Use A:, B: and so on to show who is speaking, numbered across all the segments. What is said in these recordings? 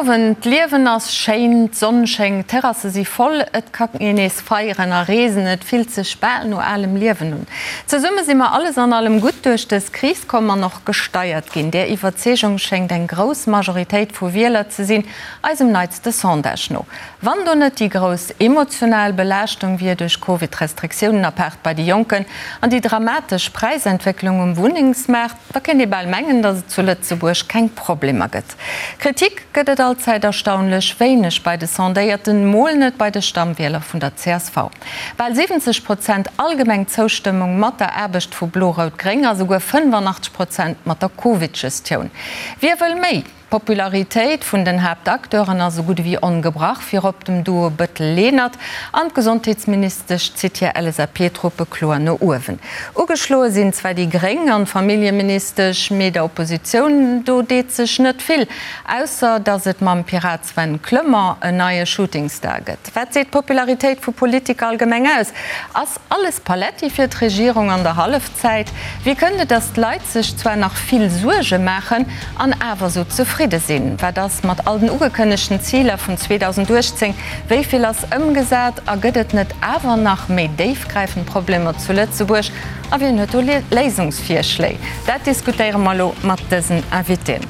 A: Owend. D'Liewen ass schéin, d'Sonn schéngt, d'Terrasse si voll, et ka een nees feieren a reesen, et fillt sech bal no alem Liewen un. Zesumme si mer alles an allem gutt duerch dës Kris komm an och gesteiert ginn. Där Iwwerzeegung schéngt eng grouss Majoritéit vu Wieler ze sinn, eisem neitste Sondage no. Wann do net déi grouss emotional Belaaschtung wier duerch Covid-Restriktiounen, apaart bei de Jonken, an déi dramatesch Präisentwécklung um Wunnengsmaart, da kéint ee bal mengen, datt et zu Lëtzebuerg keng Problemer gëtt. Kritik gëtt et allzäit erstaunlech wéineg bei de Sondéierten, mol net bei de Stammwieler vun der csv. Bal 70 Prozent allgemeng Zoustëmmung mat der Aarbecht vu Blo-Rout-Gréng a souguer 85 Prozent mat der Covid-Gestioun. Wie wëll méi? D'Popularitéit vun den Haaptacteuren ass esou gutt ewéi ongebrach, virop dem Duo Bëttel-Lenert an d'Gesondheetsministesch zitt hir LSAP-Truppe kloer no uewen. Ugeschloe sinn zwar déi Gréng an d'Familljeministesch, mee der Oppositioun do deet sech net vill, ausser datt et mam Pirat Sven Clement en neie Shootingstar gëtt. Wat seet d'Popularitéit vu Politiker allgemeng aus? Ass alles Paletti fir d'Regierung an der Hallefzäit? Wéi kënnt et, datt d'Leit sech zwar nach vill Suerge maachen an awer sou zefridde sinn? Wat ass mat all den ugekënnegten Ziler vun 2018? Wéi vill ass ëmgesat? A gëtt et net awer nach méi déifgräifend Problemer zu Lëtzebuerg? A wien huet do Léisungsvirschléi? Dat diskutéiere mer elo mat dësen Invitéen.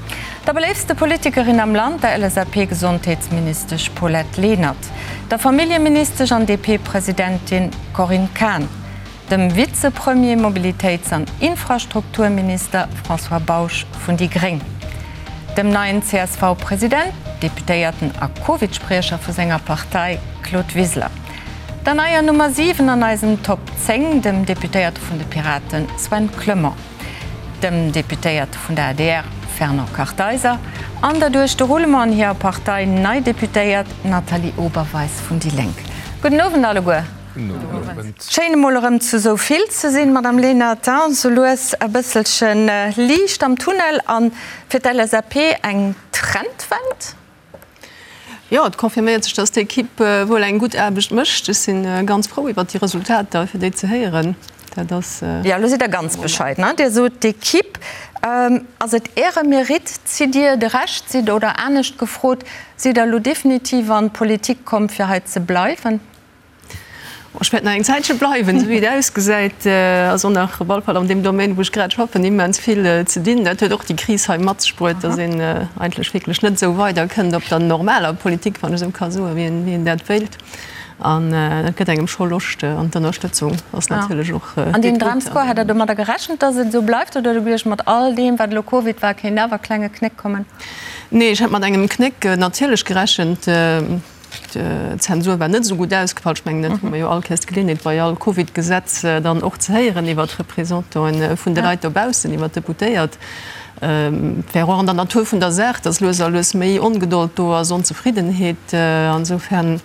A: Der beléiftste Politikerin am Land, der LSAP-Gesondheetsministesch Paulette Lenert, der Familljeministesch an DP-Presidentin Corinne Cahen, dem Vizepremier, Mobilitéits an Infrastrukturminister François Bausch vun déi gréng, dem neien CSV-President, Deputéierten a Covid-Spriecher vu senger Partei Claude Wiseler, der neier Nummer 7 an eisem Top 10, dem Deputéierte vun de Piraten Sven Clement. dem Deputéierte vun der adr Fernand Kartheiser an der duerch de Roulement an hirer Partei nei Deputéiert Nathalie Oberweis vun déi Lénk. Gudden Owend alleguer. Schéin emol erëm zu esou vill ze sinn, Madame Lenert. Sou lues e bësselche Liicht am Tunnel a fir d'LSAP eng Trendwend?
B: Jo, et confirméiert sech, dass d'Ekipp wuel eng gutt Aarbecht mécht. Ech si ganz frou iwwert déi Resultater, fir déi ze héieren. Dat ass.
A: Jo, elo sidd Der ganz bescheiden, hein? Dir sot d'Ekipp. Ass et Äre Mérite? Zitt Dir de Rescht? Sidd, oder anescht gefrot, sidd Der elo definitiv an d'Politik komm, fir hei ze bleiwen?
B: Ech wäert nach eng Zäitche bleiwen, esou wéi et ausgesäit ass och nach op alle Fall an deem Domaine, wou ech grad schaffen, immens vill ze dinn. Dat huet och déi Kris hei mat sech bruet, datt een eigentlech wierklech net esou weiderkënnt op der normaler Politik, wann ech esou ka soen, wéi een dat wéilt. An dat gëtt engem scho Loscht an d'Ënnerstëtzung ass natierlech och.
A: An deen Dramscore, hat Der domadder gerechent, datt et esou bleift, oder hutt Der geduecht, mat all deem, wat elo Covid war, kéint awer e klenge Knéck kommen?
B: Nee, ech hat mat engem Knéck natierlech gerechent. D'Zensur war net esou gutt ausgefall. Ech mengen, dat hu mer jo all Kéiers d'Geleeënheet bei all Covid-Gesetz dann och ze héieren iwwer d'Representanten vun de Leit dobaussen, iwwer d'Deputéiert. Et wär och an der Natur vun der Saach, datt lues a lues méi Ongedold do ass, Onzefriddenheet. Insofern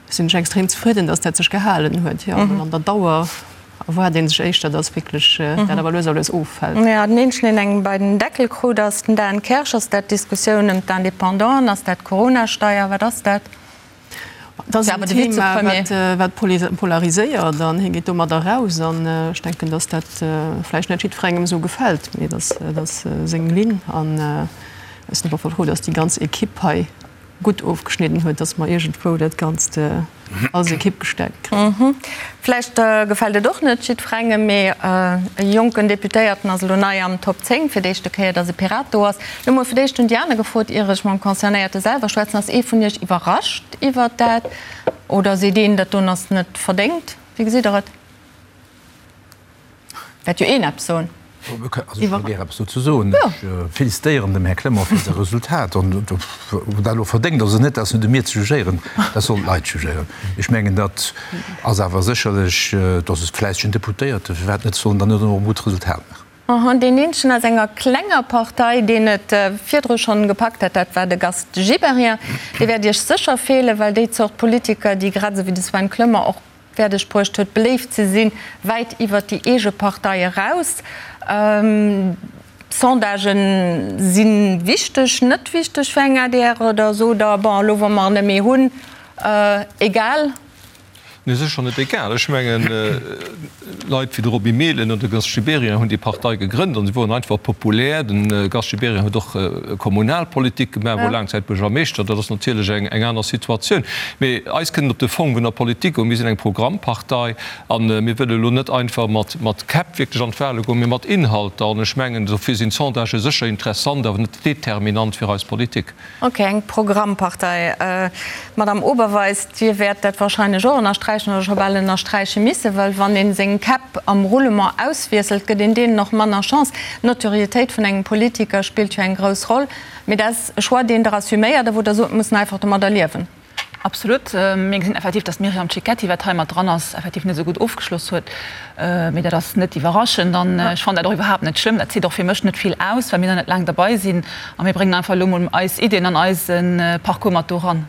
B: sinn ech extrem zefridden, datt dat sech gehalen huet. Jo, well an der Dauer erwaart ee sech éischter, datt wierklech dat awer lues a lues offält.
A: Jo, den eenzegen, deen eng bei den Deckel krut, ass den Dan Kersch. Ass dat d'Diskussioun ëm d'Independanten? Ass dat d'Corona-Steier? Wat ass dat?
B: Dat ass en Thema, wat polariséiert an hie geet domadder eraus. An ech denken, datt dat vläicht net jiddwerengem esou gefält, mee dat ass seng Linn. An ech sinn awer frou, datt déi ganz Ekipp hei gutt ofgeschnidden huet, datt mer iergendwou dat Ganzt als Ekipp gestäerkt kréien.
A: Vläicht gefält et och net jiddwerengem, mee e jonken Deputéierten ass elo nei am Top 10, fir d'éischte Kéier, datt e Pirat do ass. Elo mol fir d'éischt hunn déi aner gefrot, ier ech mam Concernéierte selwer schwätzen. Ass ee vun Iech iwwerrascht iwwert dat oder seet een, dat doen ass net verdéngt? Wéi gesitt Der et? Wäert jo een eppes soen.
C: Also ech wëll gär eppes dozou soen. Ech félicitéieren dem Här Clement fir säi Resultat. An ob dat elo verdéngt ass oder net, dat ass net u mir ze jugéieren, dat sollen d'Leit jugéieren. Ech mengen, dat ass awer sécherlech, dat ass e fläissegen Deputéierte, firwat net, soll en dann net och e gutt Resultat maachen.
A: An deen eenzegen aus enger klenger Partei, deen et virdru schonn gepackt hat, dat war de Gast Gibéryen. Dee wäert Iech sécher feelen, well déi Zort Politiker, déi grad esou wéi de Sven Clement och fäerdeg bruecht huet, beléift ze sinn, wäit iwwert déi eege Partei eraus. Sondagen si wichteg, net wichteg fir eng adr oder sot Der, bon, elo wa mer en net méi hunn, egal?
D: Nee, sécher net egal. Ech mengen, Leit wéi de Roby Mehlen oder de Gast Gibéryen hunn déi Partei gegrënnt an se woren einfach populär. De Gast Gibéryen huet och Kommunalpolitik gemaach, wor laang Zäit Buergermeeschter. Dat ass natierlech eng aner Situatioun. Mee eis kënnt et op de Fong vun der Politik un. Mir sinn eng Programmpartei a mir wëlle elo net einfach mat Käpp wierklech an d'Wahle goen, mee mat Inhalter. An ech mengen, dofir sinn d'Sondagë sécher interessant, awer net determinant fir eis Politik.
A: Ok, eng Programmpartei. Madame Oberweis, Dir wäert dat wahrscheinlech och ënnersträichen oder scho bal ënnersträiche missen, well wann ee seng Käpp am Roulement auswiesselt, gëtt een deenen och manner Chance. D'Notoriétéit vun engem Politiker spillt jo eng grouss Roll. Mee dat ass e Choix, deen Der assuméiert a wou Der sot, mir mussen einfach domadder liewen.
E: Absolut. Mir gesinn effektiv, datt d'Myriam Cecchetti, wat hei mat dran ass, effektiv net esou gutt ofgeschloss huet. Mee dat ass net iwwerraschend an ech fannen dat och iwwerhaapt net schlëmm. Dat seet och fir mech net vill aus, well mir nach net laang derbei sinn a mir bréngen einfach elo mol eis Iddien an eise Parcours mat do ran.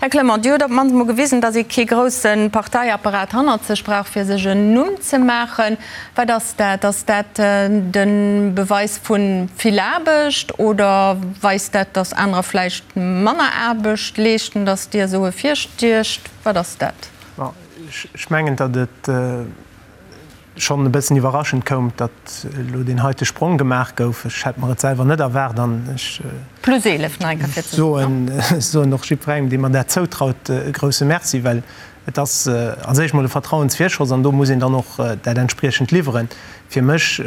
A: Här Clement, Dir hutt op d'mannst mol gewisen, datt ee kee grousse Parteiapparat hannert sech brauch, fir sech en Numm ze maachen. Wat ass dat? Ass dat de Beweis vu vill Aarbecht oder weist dat, datt anerer vläicht manner Aarbecht leeschten, datt Dir esou ervirstiecht? Wat ass dat?
F: Ech mengen, datt et schonn e bëssen iwwerraschend koum, datt elo deen heite Sprong gemaach gouf. Ech hätt mer et selwer net erwaart an ech
A: Plus 11, nach eng Kéier fir ze soen.
F: soen och jiddwerengem, dee mer dat zoutraut, e grouse Merci, well Et ass als éischt mol e Vertrauensvirschoss an do muss een dann och dat entspriechend liwweren. Fir mech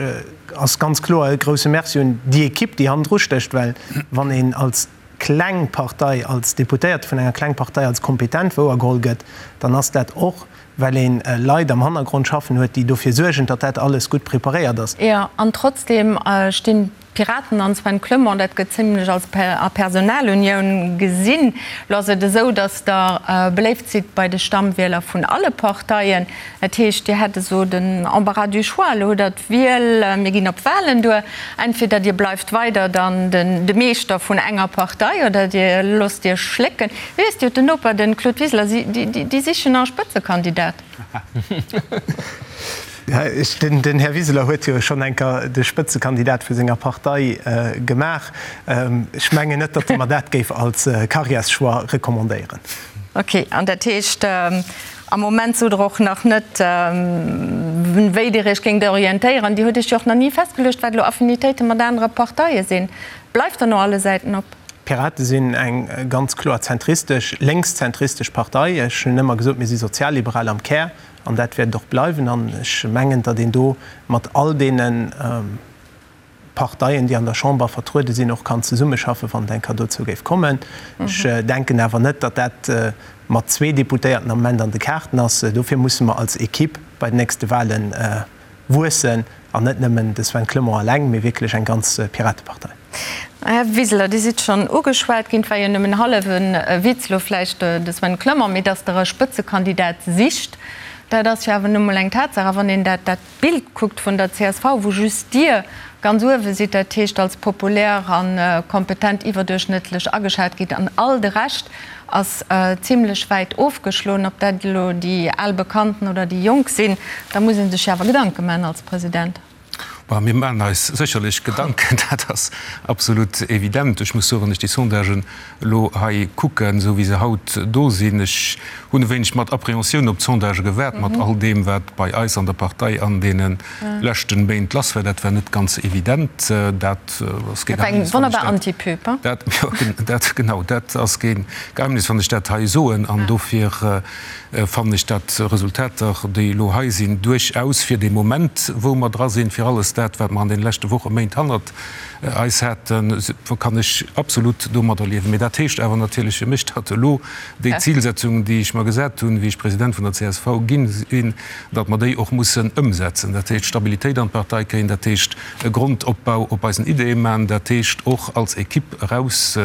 F: ass ganz kloer e grouse Merci un déi Ekipp, déi hannendru stécht, well wann een als kleng Partei, als Deputéierte vun enger kleng Partei als kompetent wouergeholl gëtt, dann ass dat och, well ee Leit am Hannergrond schaffen huet, déi dofir suergen, datt dat alles gutt preparéiert ass.
A: Jo, an trotzdem stinn D'Piraten an Sven Clement, dat gëtt zimlech als a Personalunioun gesinn. Lo ass et esou, datt Der beléift sidd bei de Stammwieler vun alle Parteien. Dat heescht, Dir hätt esou den Embarras du choix. Elo hutt Der d'Wiel, mir ginn op Walen duer, entweder Dir bleift weider dann de Meeschter vun enger Partei oder Dir loosst Iech schlécken. Wéi ass Dir hutt den Noper, de Claude Wiseler, si sichen nach e Spëtzekandidat.
F: Den Här Wiseler huet jo schonn eng Kéier de Spëtzekandidat vu senger Partei gemaach. Ech mengen net, datt e mer dat géif als Carrièreschoix recommandéieren.
A: Ok, an dat heescht, am Moment sot Der och nach net, wéi Dir Iech géingt orientéieren. Dir hutt Iech jo och nach ni festgeluecht, wat elo Affinitéite mat anere Parteie sinn. Bleift der no alle Säiten op?
F: D'Pirate sinn eng ganz kloer zentristesch, lénkszentristesch Partei. Ech hunn ëmmer gesot, mir si sozialliberal am Kär an dat wäert et och bleiwen. An ech mengen, datt een do mat all deene Parteien, déi an der Chamber vertruede sinn, och kann zesummeschaffen, wann et eng Kéier dozou géif kommen. Ech denken awer net, datt dat mat zwee Deputéierten am Moment an de Kaarten ass. Dofir musse mer als Equipe bei den nächste Wahlen wuessen an net nëmmen de Sven Clement eleng, mee wierklech eng ganz Piratepartei.
A: Här Wiseler, Dir sidd schonn ugeschwat ginn, et war jo nëmmen hallef e Witz elo vläicht, de Sven Clement, mee datt Der e Spëtzekandidat sicht, dat ass jo awer nu mol eng Tatsaach. A wann een dat dat Bild kuckt vun der csv, wou just Dir ganz uewe sidd, dat heescht als populär a kompetent iwwerduerchschnëttlech ageschat gitt an all de Rescht ass zimlech wäit ofgeschloen, ob dat elo déi al Bekannten oder déi Jonk sinn, da muss ee sech jo awer Gedanke maachen als President.
C: Bon, mir maachen eis sécherlech Gedanken, dat ass absolut evident. Ech muss soen, wann ech déi Sondagen elo hei kucken, esou wéi se haut do sinn, ech hunn e wéineg mat Appréhensioun op d'Sondagë gewaart, mat all deem, wat bei eis an der Partei an deene leschten Méint lass war. Dat war net ganz evident. Dat ass kee
A: Geheimnis, wann ech dat. Wonnerbar Anti-Pub,
C: hein? Dat, jo, dat, genau, dat ass kee Geheimnis, wann ech dat hei soen. An dofir fannen ech dat Resultater, déi elo hei sinn, duerchaus fir dee Moment, wou mer dra sinn, fir alles dat, wat mer an deene leschte Wochen, Méint hannert eis haten, kann ech absolut domadder liewen. Mee dat heescht awer natierlech fir mech, datt elo déi Zilsetzungen, déi ech mer gesat hunn, wéi ech President vun der csv gi sinn, datt mer déi och mussen ëmsetzen. Dat heescht Stabilitéit an d'Partei kréien, dat heescht e Grondopbau op eisen Ideeë maachen, dat heescht och als Equipe eraus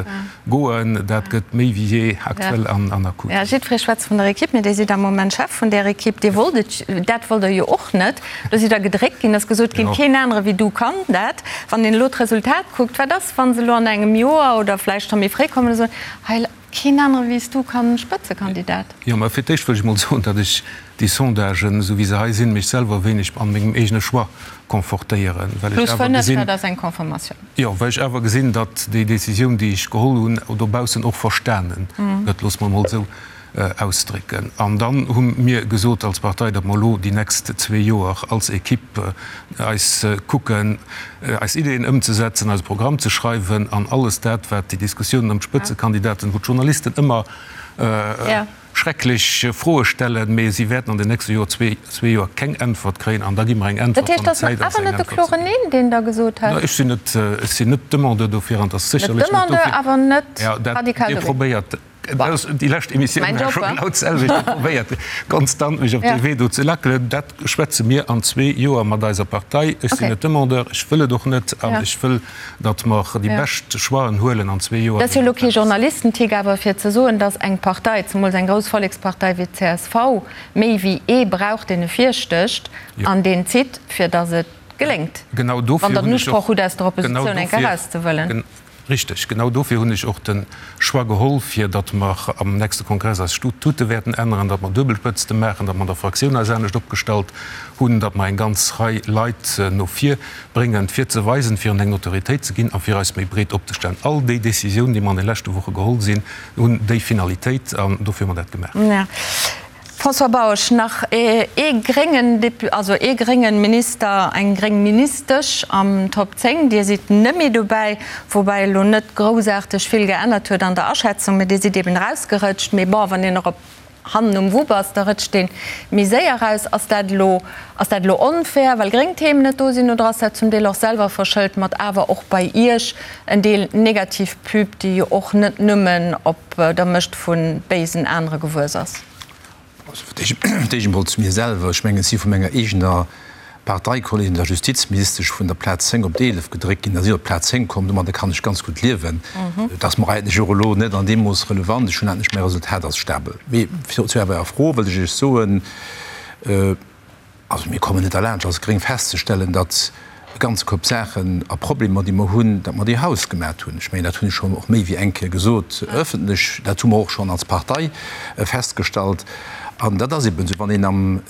C: Goen, dat gëtt méi wéi jee aktuell an akut.
A: Jo, jiddweree schwätzt vun der Equipe, mee Dir sidd am Moment Chef vun där Equipe. Dir wollt et, dat wollt Der jo och net. Do sidd Der gedréckt ginn, et ass gesot ginn, keen anere wéi du kann dat. Wann een elo d'Resultat kuckt, wat ass, wa se elo an engem Joer oder vläicht scho méi fréi kommen a soen, hei, keen anere wéi s du kann Spëtzekandidat?
C: Jo, mä fir d'éischt wëll ech mol soen, datt ech déi Sondagen, esou wéi se hei sinn, mech selwer e wéineg an mengem eegene Choix confortéieren,
A: well ech awer gesinn. Plus 5, dat ass eng Confirmatioun.
C: Jo, well ech awer gesinn, datt déi Décisioun, déi ech geholl hunn, dobaussen och verstane gëtt, loosse mer emol esou.
G: Ausdrécken. An dann hu mir gesot als Partei, datt mer elo déi nächst zwee Joer als Equipe eis kucken, eis Ideeën ëmzesetzen, eise Programm ze schreiwen an alles dat, wat déi Diskussiounen ëm d'Spëtzekandidaten, wou d'Journalisten ëmmer schrecklech Froe stellen, mee si wäerten an den nächste Joer, zwee Joer keng Äntwert kréien an da gi mer eng
A: Äntwert, wann et Zäit ass, eng Äntwert ze ginn. Deen Der gesot
G: hat? Ech sinn net, ech sinn net Demandeur dofir an et ass sécherlech net dofir. Dir probéiert Déi lescht Emissioun war scho genau d'selwecht. Dir probéiert konstant mech op dee Wee do ze lackelen. Dat schwätze mir an zwee Joer mat eiser Partei. Ech sinn net Demandeur, ech wëll et och net an ech wëll, datt mer déi bescht Choixen huelen an zwee Joer.
A: Dat ass jo elo kee Journalistentick, awer fir ze soen, datt eng Partei, zemools eng grouss Vollekspartei wéi d'CSV, méi wéi ee brauch, deen e virstécht an deen zitt, fir datt et geléngt, wann Der den Usproch hutt, aus der Oppositioun eng Kéier erauszewëllen.
G: Richteg, genau dofir hunn ech och de Choix geholl, fir datt mer am nächste Kongress eis Statute wäerten änneren, datt mer Duebelspëtzte maachen, datt mer an der Fraktioun eis anescht opgestallt hunn, datt mer eng ganz Rei Leit no vir bréngen, fir ze weisen, fir hinnen eng Notoriétéit ze ginn a fir eis méi breet opzestellen. All déi Décisiounen, déi mer an de leschte Woche geholl sinn, hunn déi Finalitéit an dofir hu mer dat gemaach.
A: François Bausch, Nach ee gréngen Dépu-, also ee gréngen Minister, eng gréng Ministesch am Top 10. Dir sidd net méi dobäi, woubäi elo net groussaarteg vill geännert huet an der Aschätzung, mä Dir sidd eben erausgerëtscht. Mee bon, wann een erop hannen um Wupp ass, da rëtscht ee méi séier eraus. Ass dat elo, ass dat elo onfair, well gréng Themen net do sinn, oder ass dat zum Deel och selwer verschëlt mat awer och bei Iech en Deel negativ Pub, déi jo och net nëmmen op der Mëscht vu béisen anere gewuess ass?
C: Also fir d'éischt emol zu mir selwer, Ech mengen, ech si vu menger eegener Parteikolleegin, der Justizministesch, vun der Plaz 10 op d'Eelef gedréckt ginn a si op d'Plaz 10 komm. Domadder kann ech ganz gutt liewen. Et ass mer eigentlech och elo net an deem Mooss relevant. Ech hunn eigentlech mäi Resultat ass stabel. Mee zu Ärer Fro wëllt ech Iech soen, Also mir kommen net derlaanscht als Gréng festzestellen, datt e ganze Koup Saachen a Problemer, déi mer hunn, datt mer déi hausgemat hunn. Ech mengen, dat hunn ech schonn och méi wéi eng Kéier gesot ëffentlech. Dat hu mer och schonn als Partei festgestallt. An dat ass eben esou, wann een am,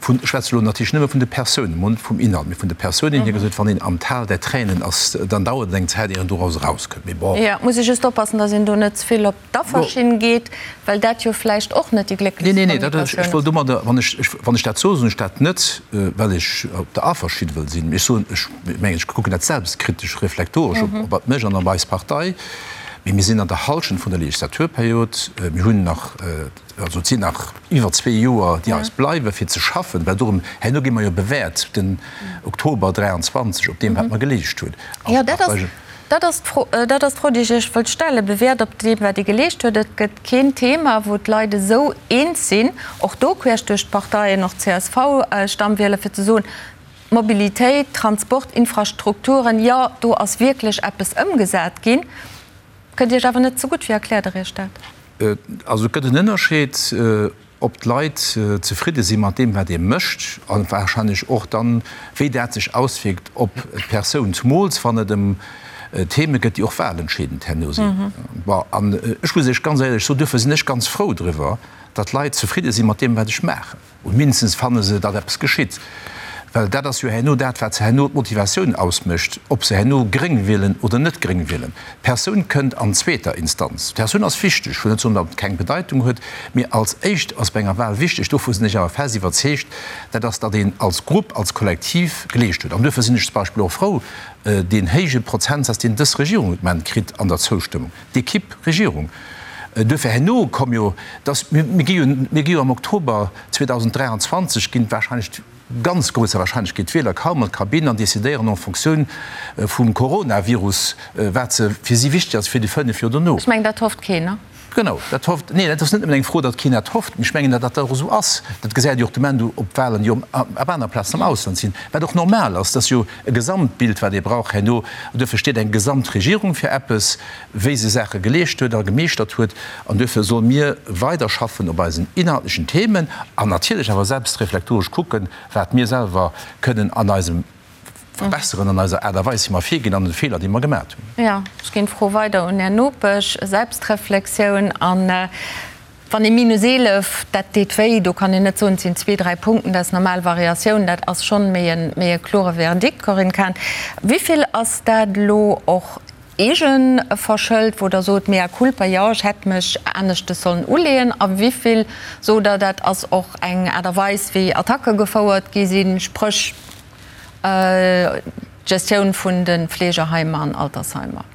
C: vun, ech schwätze elo natierlech nëmme vun de Persounen, mol net vum Inhalt, mee vun de Persounen hier gesot, wann een am Tal der Tränen ass, dann dauert et eng Zäit, ier een doraus erauskënnt. Mee bon.
A: Jo, et muss ee just oppassen, datt een do net ze vill op d'Afferschinn geet, well dat jo vläicht och net déi glécklechst
C: Nee, nee, dat, ech wëll domadder, wann ech, wann ech dat soen, soen ech dat net, well ech op der Afferschinn wëll sinn. Mee ech soen, ech mengen, ech kucken dat selbstkritesch, reflektoresch op, op mech an op eis Partei. Mee mir sinn an der Hallschent vun der Legislaturperiod. Mir hunn nach, also et sinn nach iwwer zwee Joer, déi eis bleiwen, fir ze schaffen, well dorëm, herno gi mer jo bewäert, den Oktober 23, op deem, wat mer geleescht hunn als
A: Partei. Dat ass d'Fro, dat ass d'Fro, déi ech Iech wëllt stellen. Bewäert op deem, wat Dir geleescht huet. Et gëtt keen Thema, wou d'Leit esou eens sinn, och do queesch duerch d'Parteien, och d'CSV-Stammwieler, fir ze soen, Mobilitéit, Transport, Infrastrukturen, jo, do ass wierklech eppes ëmgesat ginn. Kënnt Iech awer net zegutt. Wéi erkläert Der Iech dat?
C: Also et gëtt en Ënnerscheed. ob d'Leit zefridde si mat deem, wat ee mécht, a warscheinlech och dann, wéi dat sech auswierkt op d'Persoun, zumools wann et ëm Theme gëtt, déi och wahlentscheedend herno sinn. Bon, an ech muss Iech ganz éierlech soen, duerfir sinn ech ganz frou driwwer, datt d'Leit zefridde si mat deem, wat ech maachen. Oder mindestens fanne se, datt eppes geschitt. Well dat ass jo herno dat, wat se herno d'Motivatioun ausmécht, ob se herno gréng wielen oder net gréng wielen. D'Persoun kënnt an zweeter Instanz. D'Persoun ass wichteg, ech wëll net soen, datt et keng Bedeitung huet, mee als éischt ass bei enger Wahl wichteg, dovu sinn ech awer fest iwwerzeegt, dat ass, datt een als Grupp, als Kollektiv geleescht huet. An duerfir sinn ech zum Beispill och frou, deen héije Prozentsaz, deen dës Regierung de Moment kritt an der Zoustëmmung, d'Equipe Regierung. Duerfir herno komm jo, datt mir gi jo, mir gi jo am Oktober 2023 ginn wahrscheinlech, ganz grousser Wahrscheinlechkeet d'Wieler kaum an d'Kabinn an decidéieren en Fonctioun vum Coronavirus, wat se fir si wichteg ass fir déi 5 Joer dono.
A: Ech mengen, dat hofft keen, ne?
C: Genau, dat hofft, neen, dat ass net nëmmen eng Fro, datt keen dat hofft, mee ech mengen, datt dat och esou ass. Dat gesäit ee jo och de Moment op Wahlen, déi op aner Plazen am Ausland sinn, wat och normal ass. Dat ass jo e Gesamtbild, wat ee brauch herno. An duerfir steet eng Gesamtregierung fir eppes, wéi se Saache geleescht huet a gemeeschtert huet. An duerfir solle mir weiderschaffen op eisen inhaltlechen Themen an natierlech awer selbstreflektoresch kucken, wat mir selwer kënnen an eisem verbesseren, an eiser Aart a Weis, wéi mer virginn, an de Feeler, déi mer gemat hunn.
A: Jo, ech ginn d'Fro weider un Är Nopesch. Selbstreflexioun an wann ee minus 11, dat deet wéi, do kann een net soen, et sinn zwee, dräi Punkten, dat ass normal Variatioun, dat ass schonn méi e kloere Verdikt. Corinne Cahen, wéi vill ass dat elo och? Eegeverschëllt, wou Der sot, mea culpa, jo, ech hätt mech aneschtes sollen uleeën, a wéi vill sot Der, dat ass och eng Aart a Weis, wéi Attacke gefouert gi sinn, spréch d'Gestioun vun de Fleegeheimer an Altersheimer?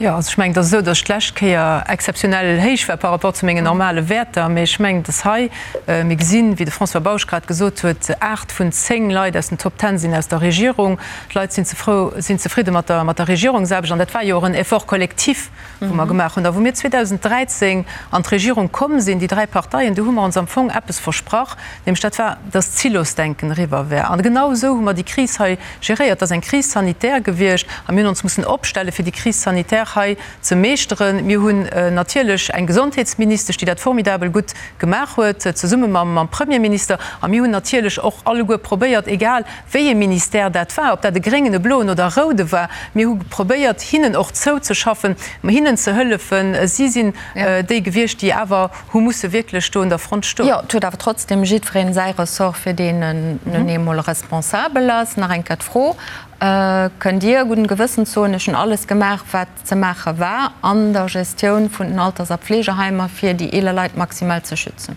B: Jo, also ech mengen, et ass esou, datt ech d'lescht Kéier exzeptionell héich war par rapport zu mengen normale Wäerter. Mee ech mengen, datt hei, mir gesinn, wéi de François Bausch grad gesot huet, 8 vun 10 Leit aus den Top Ten sinn aus der Regierung. D'Leit sinn zefrou, sinn zefridde mat der, mat der Regierungsaarbecht. An dat war jo och en Effort collectif, wou mer gemaach hunn. A wou mir 2013 an d'Regierung komm sinn, déi dräi Parteien, do hu mer ons am Fong eppes versprach, nämlech dat war, datt d'Silosdenken eriwwer wär. An genau esou hu mer déi Kris hei geréiert. Et ass eng Crise sanitaire gewiescht a mir hunn ons mussen opstellen, fir déi Crise sanitaire hei ze meeschteren. Mir hunn natierlech eng Gesondheetsministesch, déi dat formidabel gutt gemaach huet, zesumme mam Premierminister. A mir hunn natierlech och alleguer probéiert, egal wéi ee Ministère dat war, ob dat e gréngen, e bloen oder e roude war, mir hu probéiert, hinnen och zouzeschaffen, hinnen ze hëllefen. Si sinn déi gewiescht, déi awer hu musse wierklech do un der Front stoen.
A: Jo, et huet awer trotzdem jiddwereen säi Ressort, fir deen en nun eemol responsabel ass. Nach eng Kéier d'Fro, Kënnt Dir gudden Gewëssens soen, ech hunn alles gemaach, wat ze maache war an der Gestioun vun den Alters a Pflegeheimer, fir déi eeler Leit maximal ze schützen?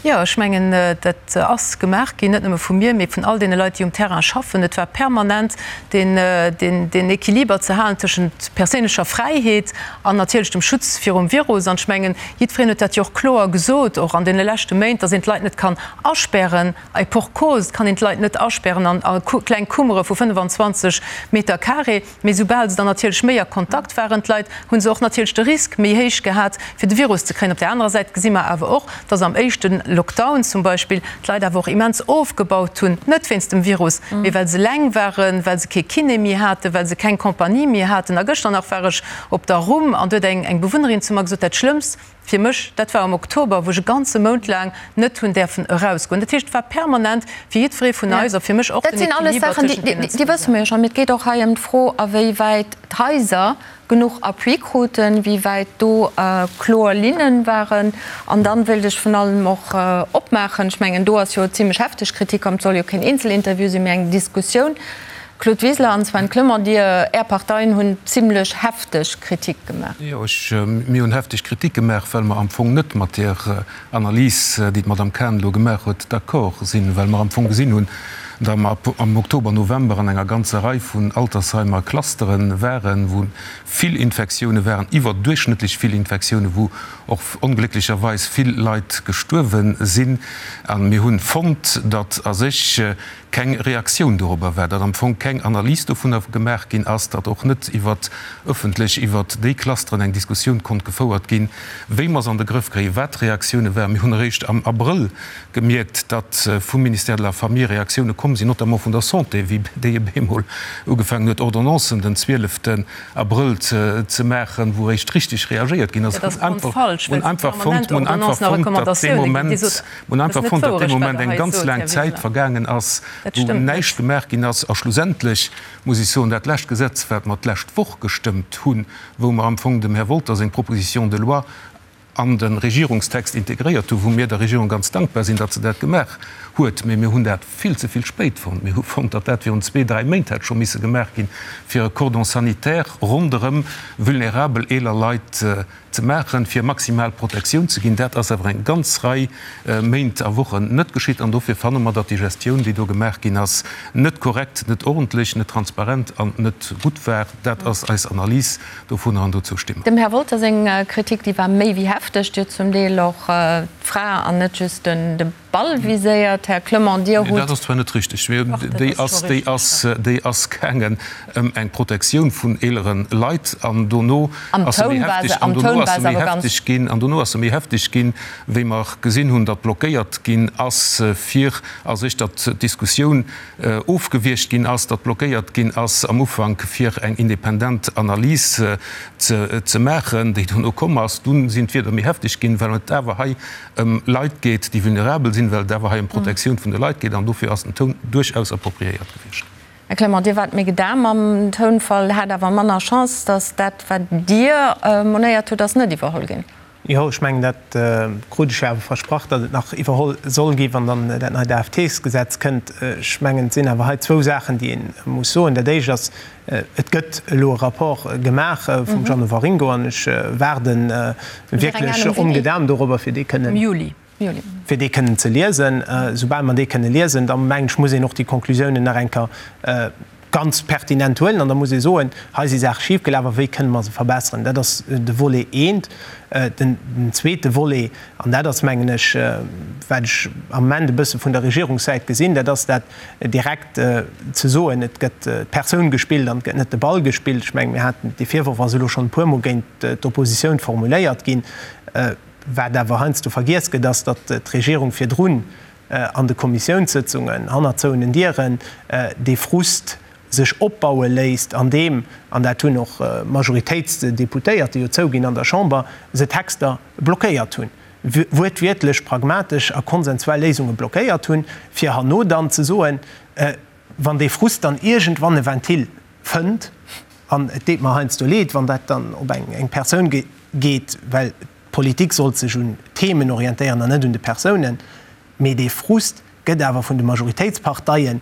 B: Jo, ech mengen, dat ass gemaach ginn, net nëmme vu mir, mee vun all deene Leit, déi um Terrain schaffen. Et war permanent deen Equiliber ze halen tëschent perséinlecher Fräiheet an natierlech dem Schutz virum Virus. An ech mengen, jiddwereen huet dat jo och kloer gesot, och an deene leschte Méint, dass een d'Leit net kann aspären, et pour cause, et kann een d'Leit net aspären an a kleng Kummere vu 25 Meter carré. Mee soubal se dann natierlech méi a Kontakt waren, d'Leit, hu se och natierlech de Risk méi héich gehat, fir de Virus ze kréien. Op där anerer Säit gesi mer awer och, dass am éischte Lockdown zum Beispill d'Leit awer och immens ofgebaut hunn, net wéinst dem Virus, mee well se eleng waren, well se kee Kiné méi haten, well se keng Compagnie méi haten. A gëschter nach war ech op der Rhum an do huet eng Bewunnerin zu mer gesot, dat Schlëmmst fir mech, dat war am Oktober, wou ech e ganze Mount laang net hunn däerfen erausgoen. Dat heescht, et war permanent fir jiddweree vun eis a fir mech och
A: den Equiliber tëschent deenen zwou. Dat sinn alles Saachen, déi wësse mer jo schonn. Mee et geet och hei ëm d'Fro, a wéi wäit d'Haiser genuch Appui kruten, wéi wäit do kloer Linnen waren. An dann wéilt ech vun allem och opmaachen, ech mengen, do ass jo zimlech hefteg Kritik komm, et soll jo keen Eenzelinterview sinn, mee eng Diskussioun. Claude Wiseler an Sven Clement, Dir, Är Parteien hunn zimlech hefteg Kritik gemaach.
G: Jo, ech, mir hunn hefteg Kritik gemaach, well mer am Fong net mat där Analys, déi d'Madame Cahen elo gemaach huet, d'accord sinn, well mer am Fong gesinn hunn, datt mer am Oktober, November an enger ganzer Rei vun Altersheimer Clusteren waren, wou vill Infektioune waren, iwwerduerchschnëttlech vill Infektioune, wou och onglécklecherweis vill Leit gestuerwe sinn. A mir hunn fonnt, datt a sech keng Reaktioun dorobber war, datt am Fong keng Analys dovunner gemaach ginn ass, datt och net iwwert ëffentlech iwwert déi Clusteren eng Diskussioun konnt gefouert ginn, wéi mer se an de Grëff kréien, wat d'Reaktioune waren. Mir hunn eréischt am Abrëll gemierkt, datt vum Ministère de la Famille Reaktioune komm sinn, notamment vun der Santé, wéi déi op eemol ugefaangen huet, Ordonnancen den 12 Abrëll ze maachen, wou eréischt richteg reagéiert ginn ass.
B: Dat ass grondfalsch, well se permanent Ordonnancen a Recommandatioune ginn. Dir sot.
G: Mir hunn einfach fonnt, datt dee Moment eng ganz laang Zäit vergaangen ass, wou näischt gemaach ginn ass. A schlussendlech muss ech soen, dat lescht Gesetz, wat mer d'lescht Woch gestëmmt hunn, wou mer am Fong dem Här Wolter seng Proposition de loi an de Regierungstext integréiert hunn, wou mir der Regierung ganz dankbar sinn, datt se dat gemaach huet, mä mir hunn dat vill ze vill spéit fonnt. Mir hu fonnt, datt dat virun zwee, dräi Méint hätt scho misse gemaach ginn, fir e Cordon sanitaire ronderëm vulnerabel eeler Leit ze maachen, fir maximal Protektioun ze ginn. Dat ass awer eng ganz Rei Méint a Wochen net geschitt an dofir fanne mer, datt déi Gestioun, déi do gemaach ginn ass, net korrekt, net ordentlech, net transparent an net gutt war. Dat ass eis Analys dovunner an dozou sti mer.
A: Dem Här Wolter seng Kritik, déi war méi wéi hefteg. Déi huet zum Deel och d'Fra an net just de Ball viséiert, Här Clement, Dir hutt.
G: Dat ass zwar net richtig, mee déi ass, déi ass, déi ass gaangen ëm eng Protektioun vun eelere Leit an dono ass se méi hefteg, an dono ass se méi hefteg ginn, an dono ass se méi hefteg ginn, wéi mer gesinn hunn, datt blockéiert ginn ass, fir a sech, datt d'Diskussioun ofgewiergt ginn ass, datt blockéiert ginn ass am Ufank, fir eng independent Analys ze, ze maachen, déi dono komm ass. Dunn sinn d'Wierder méi hefteg ginn, well et awer hei ëm Leit geet, déi vulnerabel sinn, well et awer hei ëm d'Protektioun vun de Leit geet, an dofir ass den Toun duerchaus appropriéiert gewiescht.
A: Här Clement, Dir waart méi gedaam mam Tounfall, hat awer manner Chance, datt dat, wat Dir monéiert hutt, ass net iwwerholl ginn.
F: Jo, ech mengen, dat krut ech jo awer versprach, datt et nach iwwerholl soll gi wann dann dat neit AFT-Gesetz kënnt. Ech mengen, et sinn awer hei zwou Saachen, déi ee muss soen. Dat Éischt ass, Et gëtt elo e Rapport gemaach vum Jeannot Waringo an ech waarde wierklech ongedaam dorobber, fir dee kënnen, fir dee kënnen ze liesen. Soubal mer dee kënne liesen, da mengen ech, muss een och déi Konklusiounen nach eng Kéier ganz pertinent huelen an da muss ee soen, hei si Saache schifgelaf a wéi kënne mer se verbesseren. Dat ass de Volet eent. Den zweete Volet, an dat ass, mengen ech, wat ech am Moment e bësse vun der Regierungssäit gesinn, dat ass dat direkt ze soen, et gëtt d'Persoun gespillt an et gëtt net de Ball gespillt. Ech mengen, mir haten, dee Virworf ass elo schonn e puermol géint d'Oppositioun formuléiert ginn. Wat awer heiansdo vergiess gëtt, ass, datt d'Regierung virdrun an de Kommissiounssëtzungen, hannert zouenen Dieren, dee Frust sech opbaue léisst, an deem, an dat hunn och Majoritéitsdeputéierte jo zouginn an der Chamber, se Texter blockéiert hunn, wuertwiertlech pragmatesch a konsensuell Léisunge blockéiert hunn, fir herno dann ze soen, wann dee Frust dann iergendwann e Ventil fënnt, an et deet mer heiansdo leed, wann dat dann op eng Persoun geet, well D'Politik sollt sech un Themen orientéieren an net un de Persounen. Mee dee Frust gëtt awer vun de Majoritéitsparteien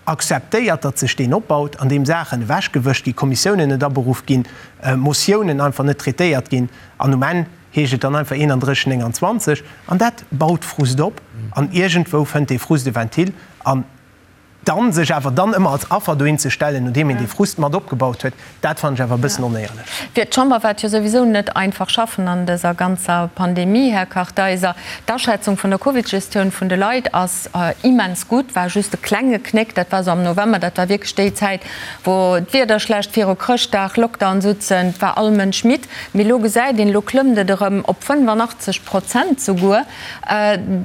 F: akzeptéiert, datt sech deen opbaut, an deem Saachen ewechgewëscht ginn, Kommissiounen net aberuff ginn, Motiounen einfach net traitéiert ginn. An um Enn heescht et dann einfach 31, 29. An dat baut Frust op. An iergendwou fënnt dee Frust e Ventil. An Dann sech awer dann ëmmer als Affer dohin ze stellen, nodeem een dee Frust mat opgebaut huet, dat fannen ech awer e bëssen onéierlech.
A: Fir d'Chamber war et jo souwisou net einfach schaffen an dëser ganzer Pandemie, Här Kartheiser. D'Aschätzung vun der Covid-Gestioun vun de Leit ass immens gutt, war just e klenge Knéck, dat war esou am November, dat war wierklech déi Zäit, wou d'Wieder schlecht, viru Chrëschtdag, Lockdown sutzen, war all Mënsch midd. Mee elo gesäit een, elo klëmmt et erëm op 85 Prozent souguer.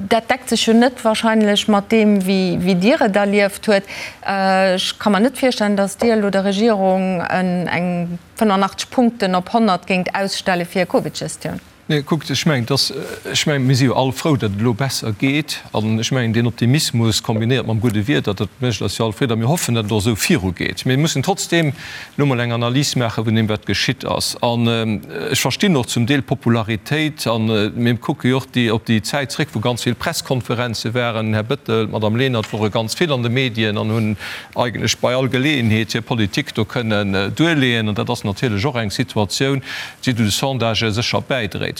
A: Dat deckt sech jo net wahrscheinlech mat deem, wéi Dir et erlieft huet. Ech ka mer net virstellen, datt Dir elo der Regierung eng 85 Punkten op 100 géingt ausstelle fir hir Covid-Gestioun.
D: Nee, kuckt, ech mengen, dass, ech mengen, mir si jo all frou, datt et elo besser geet. An ech mengen, deen Optimismus kombinéiert mam gudde Wieder, dat mécht eis jo all Freed. A mir hoffen, datt et och esou virugeet. Mir mussen trotzdeem elo mol eng Analys maache vun deem, wat geschitt ass. An ech verstinn och zum Deel d'Popularitéit. A mir kucke jo och déi, op déi Zäit zréck, wou ganz vill Presskonferenze waren. Den Här Bettel, d'Madame Lenert wore ganz vill an de Medien an hunn eigentlech bei all Geleeënheet hir Politik do kënnen duerleeën. An dat ass natierlech och eng Situatioun, déi zu de Sondagë sécher bäidréit.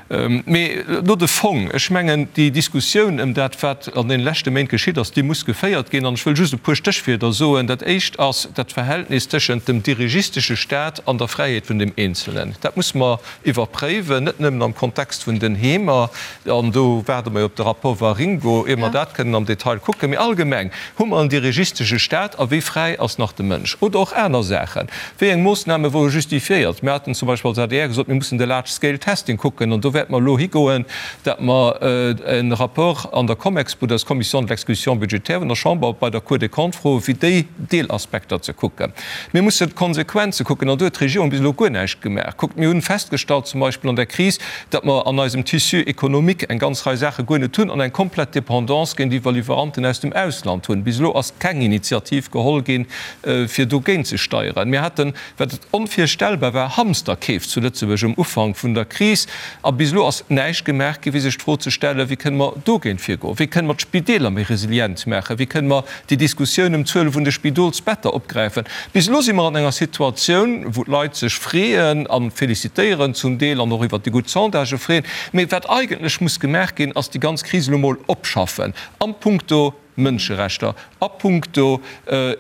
D: Mee elo de Fong. Ech mengen, déi Diskussioun ëm dat, wat an deene leschte Méint geschitt ass, déi muss geféiert ginn. An ech wëll just e puer Stéchwierder soen. Dat éischt ass dat Verhältnis tëschent dem dirigistesche Stat an der Fräiheet vun dem Eenzelnen. Dat muss mer iwwerpréiwen, net nëmmen am Kontext vun den Heemer, an do waarde mer jo op de Rapport Waringo, ier mer dat kënnen am Detail kucken, mee allgemeng, Hu mer en dirigistesche Stat a wéi fräi ass nach de Mënsch? Oder och aner Saachen. Wéi eng Moossname wore justifiéiert? Mir haten zum Beispill als adr gesot, mir mussen de Large Scale Testing kucken an do wäerte mer elo higoen, dat mer e Rapport an der Comexbu, dat ass d'Commission de l'exécution budgétaire vun der Chamber, bei der Cour des Comptes froen, fir déi Deelaspekter ze kucken. Mir mussen d'Konsequenze kucken an do huet d'Regierung bis elo guer näischt gemaach. Kuckt, mir hunn festgestallt zum Beispill an der Kris, datt mer an eisem Tissu économique eng ganz Rei Saache guer net hunn an eng komplett Dépendance géintiwwer Liwweranten aus dem Ausland hunn. Bis elo ass keng Initiativ geholl ginn, fir dogéint ze steieren. Mir haten, wat onvirstellbar war, Hamsterkeef zu Lëtzebuerg um Ufank vun der Kris a bis elo ass näischt gemaach ginn, fir sech d'Fro ze stellen, Wéi kënne mer dogéint virgoen? Wéi kënne mer d'Spideeler méi resilient maachen? Wéi kënne mer déi Diskussioun ëm d'Zuele vun de Spidolsbetter opgräifen. Bis elo si mer an enger Situatioun, wou d'Leit sech freeën a felicitéieren zum Deel an och iwwert déi gutt Sondagë freeën. Mee wat eigentlech muss gemaach ginn, ass déi ganz Kris elo mol opschaffen a puncto Mënscherechter, a puncto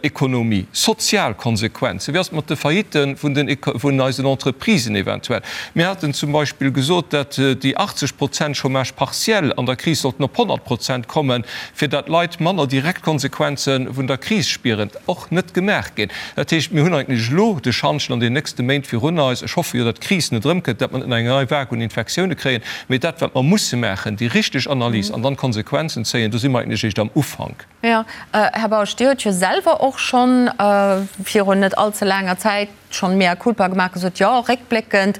D: Ekonomie, sozial Konsequenzen. Wéi ass et mat de Faillitten vun den, vun eisen Entreprisen eventuell? Mir haten zum Beispill gesot, dat déi 80 Prozent Chômage partiel an der Kris sollten op 100 Prozent kommen. fir dat d'Leit manner direkt d'Konsequenze vun der Kris spieren, och net gemaach ginn. Dat heescht, mir hunn eigentlech elo de Schantjen an den nächste Méint virun eis. Ech hoffe jo, datt d'Kris net erëmkënnt, datt mer net nach eng nei Vague un Infektioune kréien. Mee dat, wat mer musse maachen, déi richteg Analys an dann d'Konsequenzen zéien, do si mer eigentlech eréischt am Ufank.
A: Jo, Här Bausch, Dir hutt jo selwer och schonn virun net allze laanger Zäit schonn mea culpa gemaach, gesot, jo, réckbléckend,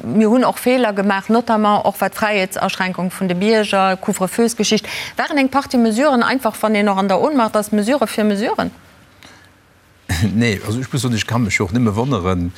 A: mir hunn och Feeler gemaach, notamment och wat d'Fräiheetsaschränkung vun de Bierger, Couvre-feux-Geschicht, waren eng Partie Mesuren einfach, wann een och an der Ohnmacht ass, Mesure fir Mesuren.
C: Nee, also ech muss soen, ech ka mech jo och nëmme wonneren,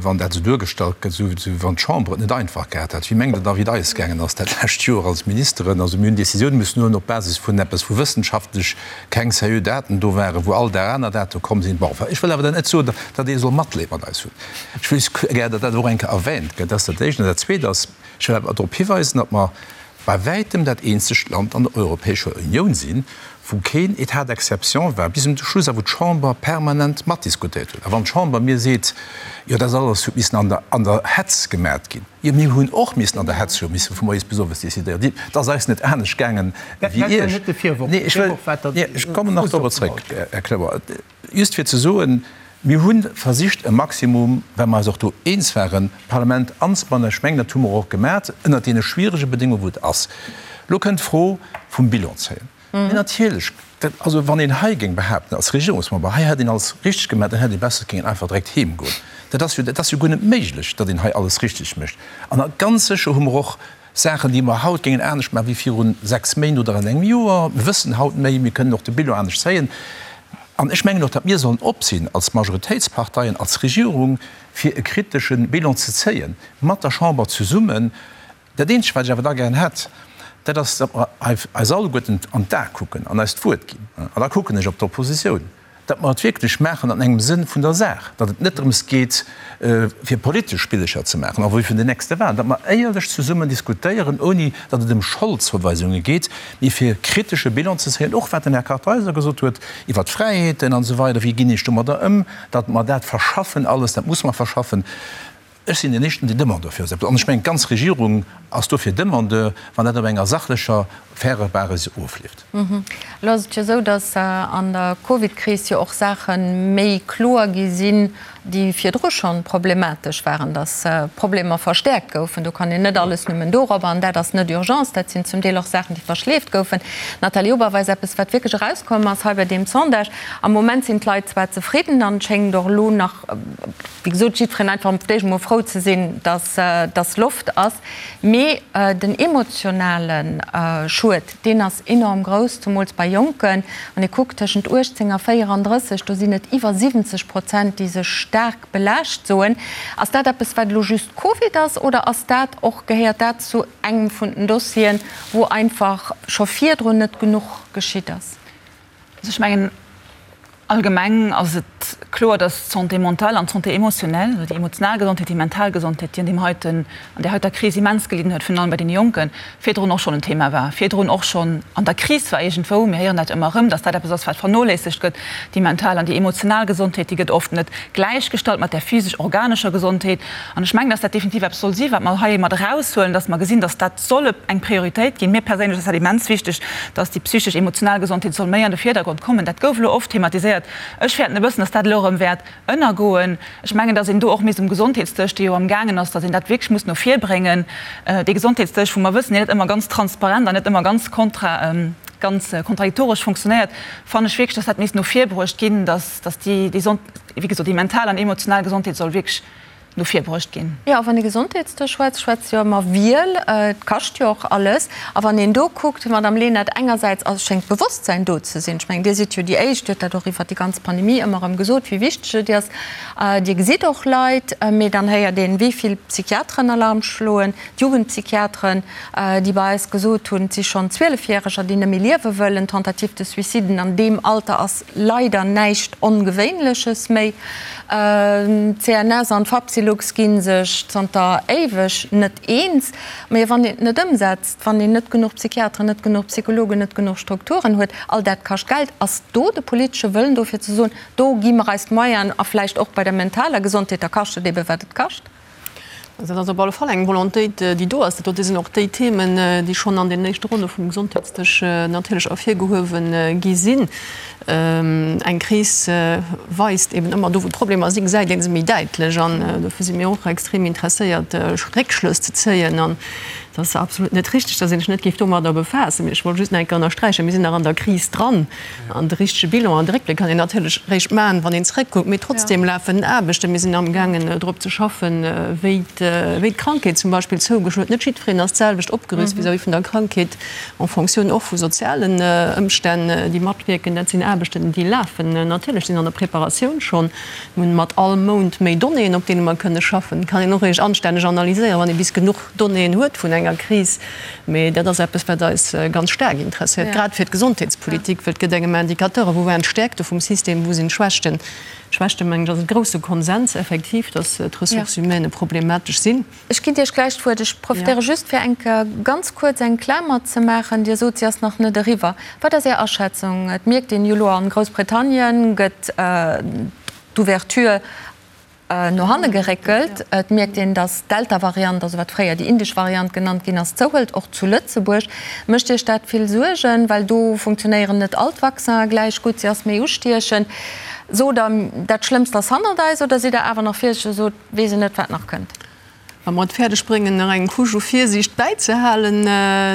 C: wann dat esou duergestallt gëtt, esou wéi wann d'Chamber et net einfach gehat hätt. Wéi mengt Der da, wéi et eis gaangen ass dat lescht Joer als Ministeren? Also mir hunn Décisioune mussen huelen op Basis vun eppes, wou wëssenschaftlech keng seriö Daten do waren, wou all Dag aner Date komm sinn. Bon, enfin, ech wëll awer dann net soen, datt ee soll Matleed mat eis hunn. Ech wëll just gär, datt dat och eng Kéier erwähnt gëtt. Dat ass dat Éischt. An dat Zweet ass, ech wëll awer drop hiweisen, datt mer bei wäitem dat eenzegt Land an der Europäescher Unioun sinn, wou keen État d'exception war bis un de Schluss a wou d'Chamber permanent matdiskutéiert huet. A wann d'Chamber mir seet, jo dat alles huet missen an der an der Hetz gemaacht ginn, jo mir hunn och missen an der Hetz, hu misse vu moies bis owes décidéieren. Et ass eis net anescht gaangen wéi Iech. Nee, ech wëll, nee, ech kommen nach dorobber zréck, Här Cloer. Just fir ze soen, Mir hu versicht e Maximum, well mer eis och do eens waren, d'Parlament anzebannen. Ech mengen, dat hu mer och gemat ënnert deene schwierege Bedéngunge wou et ass. Elo kënnt d'Fro vum Bilan zéien. Mee natierlech, dat, also wann een hei géing behaapten als Regierungsmember, hei hätt een alles richteg gemat, dann hätt ee besser géingen einfach direkt heem goen. Dat ass jo, dat ass jo guer net méiglech, datt een hei alles richteg mécht. An ganz sécher hu mer och Saachen, déi mer haut géingen anescht maachen wéi viru 6 Méint oder an engem Joer. Mir wëssen haut méi, mir kënnen och de Bilan anescht zéien. An ech mengen och, datt mir sollen op sinn als Majoritéitsparteien, als Regierung, fir e kritesche Bilan ze zéien, mat der Chamber zesummen. Dat Eenzegt, wat ech awer da gären hätt, dat ass, datt mer eis alleguerten an d'A kucken an eis d'Wuert ginn. An da kucken ech op d'Oppositioun. Datt mer et wierklech maachen an engem Sënn vun der Saach, datt et net drëms geet, fir politesch Spillecher ze maachen, en vue vun den nächste Wahlen, datt mer éierlech zesummen diskutéieren, ouni datt et ëm Scholdzouweisunge geet, mee fir kritesche Bilan ze zéien, och wat den Här Kartheiser gesot huet iwwert d'Fräiheeten an esou weider, wéi ginn ech domadder ëm, datt mer dat verschaffen alles, dat muss mer verschaffen. Ech sinn deen éischten, deen Demandeur fir esou eppes, an ech mengen, d'ganz Regierung ass dofir Demandeur, wann dat op enger sachlecher, fairer Basis ofleeft.
A: Elo ass et jo esou, datt an der Covid-Kris jo och Saache méi kloer gi sinn, déi virdru schonn problematesch waren, datt Problemer verstäerkt goufen. Do kann een net alles nëmmen dorobber, an dat ass net Urgence, dat sinn zum Deel och Saachen, déi verschleeft goufen. Nathalie Oberweis, Eppes, wat wierklech erauskomm ass hei bei deem Sondage, am Moment sinn d'Leit zwar zefridden an et schéngt och elo nach, wéi gesot, jiddwereen einfach op d'éischt emol frou ze sinn, dass dass Loft ass. Mee den emotionale Schued, deen ass enorm grouss, zemools bei Jonken. Wann ee kuckt, tëschent 18 a 34, do sinn et iwwer 70 Prozent, déi sech staark belaascht soen. Ass dat eppes, wat elo just Covid ass, oder ass dat och, gehéiert dat zu engem vun den Dossieren, wou einfach scho virdrun net genuch geschitt ass?
E: Also ech mengen, allgemeng ass et kloer, datt d'Santé mentale an d'Santé émotionnelle, also déi emotional Gesondheet, déi mental Gesondheet, déi an deem heiten, an där heiter Kris immens gelidden huet, virun allem bei deene Jonken, virdrun och schonn en Thema war, virdrun och schonn an der Kris war iergendwou. Mir héieren dat ëmmer erëm, datt dat eppes ass, wat vernoléissegt gëtt, déi mental an déi emotional Gesondheet, déi gëtt oft net gläichgestallt mat där physesch-organescher Gesondheet. An ech mengen, datt dat definitiv eppes soll si wat mer hei mat eraushuelen, datt mer gesinn, datt dat soll eng Prioritéit ginn. Mir perséinlech ass dat immens wichteg, datt déi psychesch-emotional Gesondheet soll méi an de Virdergrond kommen. Dat gouf elo oft thematiséiert. Ech fäerten e bëssen, datt dat elo erëm wäert ënnergoen. Ech mengen, datt een do och misst um Gesondheetsdësch, dee jo amgaangen ass, datt een dat wierklech muss no vir bréngen, dee Gesondheetsdësch, wou mer wëssen, deen net ëmmer ganz transparent an net ëmmer ganz kontra, ganz kontradiktoresch funktionéiert, fannen ech wierklech, datt dat misst no vir bruecht ginn, datt, datt déi, déi, wéi gesot, déi mental an emotional Gesondheet soll wierklech no vir bruecht ginn.
A: Jo, a wann ee Gesondheetsdësch schwätzt, schwätzt jo ëmmer Wiel. Et kascht jo och alles. A wann een do kuckt, Madamm Lenert, engersäits ass, schéngt d'Bewosstsäin do ze sinn. Ech mengen, Dir sidd jo déi Éischt, Dir hutt dat och iwwert déi ganz Pandemie ëmmer erëm gesot, wéi wichteg et ass. Dir gesitt och Leit, mee dann héiert een, wéi vill Psychiateren Alarm schloen, d'Jugendpsychiateren, déi bei eis gesot hunn, et si schonn Zwielefjäreger, déi net méi liewe wëllen. Tentative de suiciden an deem Alter ass leider näischt Ongewéinleches méi. D'CNS an d'Fapsylux gi sech zanter éiweg net eens. Mee wann een et net ëmsetzt, wann een net genuch Psychiateren, net genuch Psychologen, net genuch Strukturen huet, all dat kascht Geld. Ass do de politesche Wëllen do fir ze soen, do gi mer eis d'Moyenen a vläicht och bei der mentaler Gesondheet, da kascht et ebe wat et kascht?
B: Dat ass op alle Fall eng Volontéit, déi do ass. Dat sinn och déi Themen, déi schonn an den éischte Ronne vum Gesondheetsdësch natierlech ervirgehuewe gi sinn. Eng Kris weist eben ëmmer do, wou d'Problemer sinn, gesäit ee se méi däitlech. An dofir si mir och extrem interesséiert, Réckschlëss ze zéien. Dat ass absolut net richtig, dass een sech net géif domadder befaassen. Mee ech wollt just nach eng Kéier ënnersträichen, Mir sinn nach an der Kris dran. An de richtege Bilan an de Réckbléck kann een natierlech réischt maachen, wann een zréckkuckt. Mee trotzdem lafen Aarbechten. Mir sinn amgaangen, drop ze schaffen, wéi d'Krankheet zum Beispill zougeschloen huet. Net jiddwereen ass d'selwecht opgerüst vis-à-vis vun der Krankheet, en Fonctioun och vu sozialen Ëmstänn, déi matwierken. Dat sinn Aarbechten, déi lafen natierlech, sinn an der Preparatioun schonn. Mir hunn mat all Mount méi Donnéeën, op deene mer kënne schaffen. Kann een och réischt anstänneg analyséieren, wann ee bis genuch Donnéeën huet vun enger Kris. Mee dat ass eppes, wat eis ganz staark interesséiert, grad fir d'Gesondheetspolitik, well et gëtt engem Indicateuren, wou waren d'Stäerkte vum System, wou sinn d'Schwächten. D'Schwächte, mengen ech, ass e grousse Konsens effektiv, dass d'Ressources humaines problematesch sinn.
A: Ech ginn Iech gläich d'Wuert. Ech profitéiere just, fir eng Kéier ganz kuerz eng Klamer ze maachen. Dir sot, se ass nach net eriwwer. Wat ass Är Aschätzung? Et mierkt een jo elo, a Groussbritannien gëtt d'Ouverture no hanne geréckelt. Et mierkt een, datt d'Delta-Variant, also wat fréier déi indesch Variant genannt ginn ass, zouhëlt, och zu Lëtzebuerg. Mécht Iech dat vill Suergen? Well do funktionéieren net all d'Vaccinen gläich gutt, se ass méi ustiechend. Sot Der, dat Schlëmmst ass hannert eis, oder sidd Der awer nach virsiichteg a sot, weess een net, wat nach kënnt?
B: Wa mer et fäerdeg bréngen, nach eng Couche u Virsiicht bäizehalen,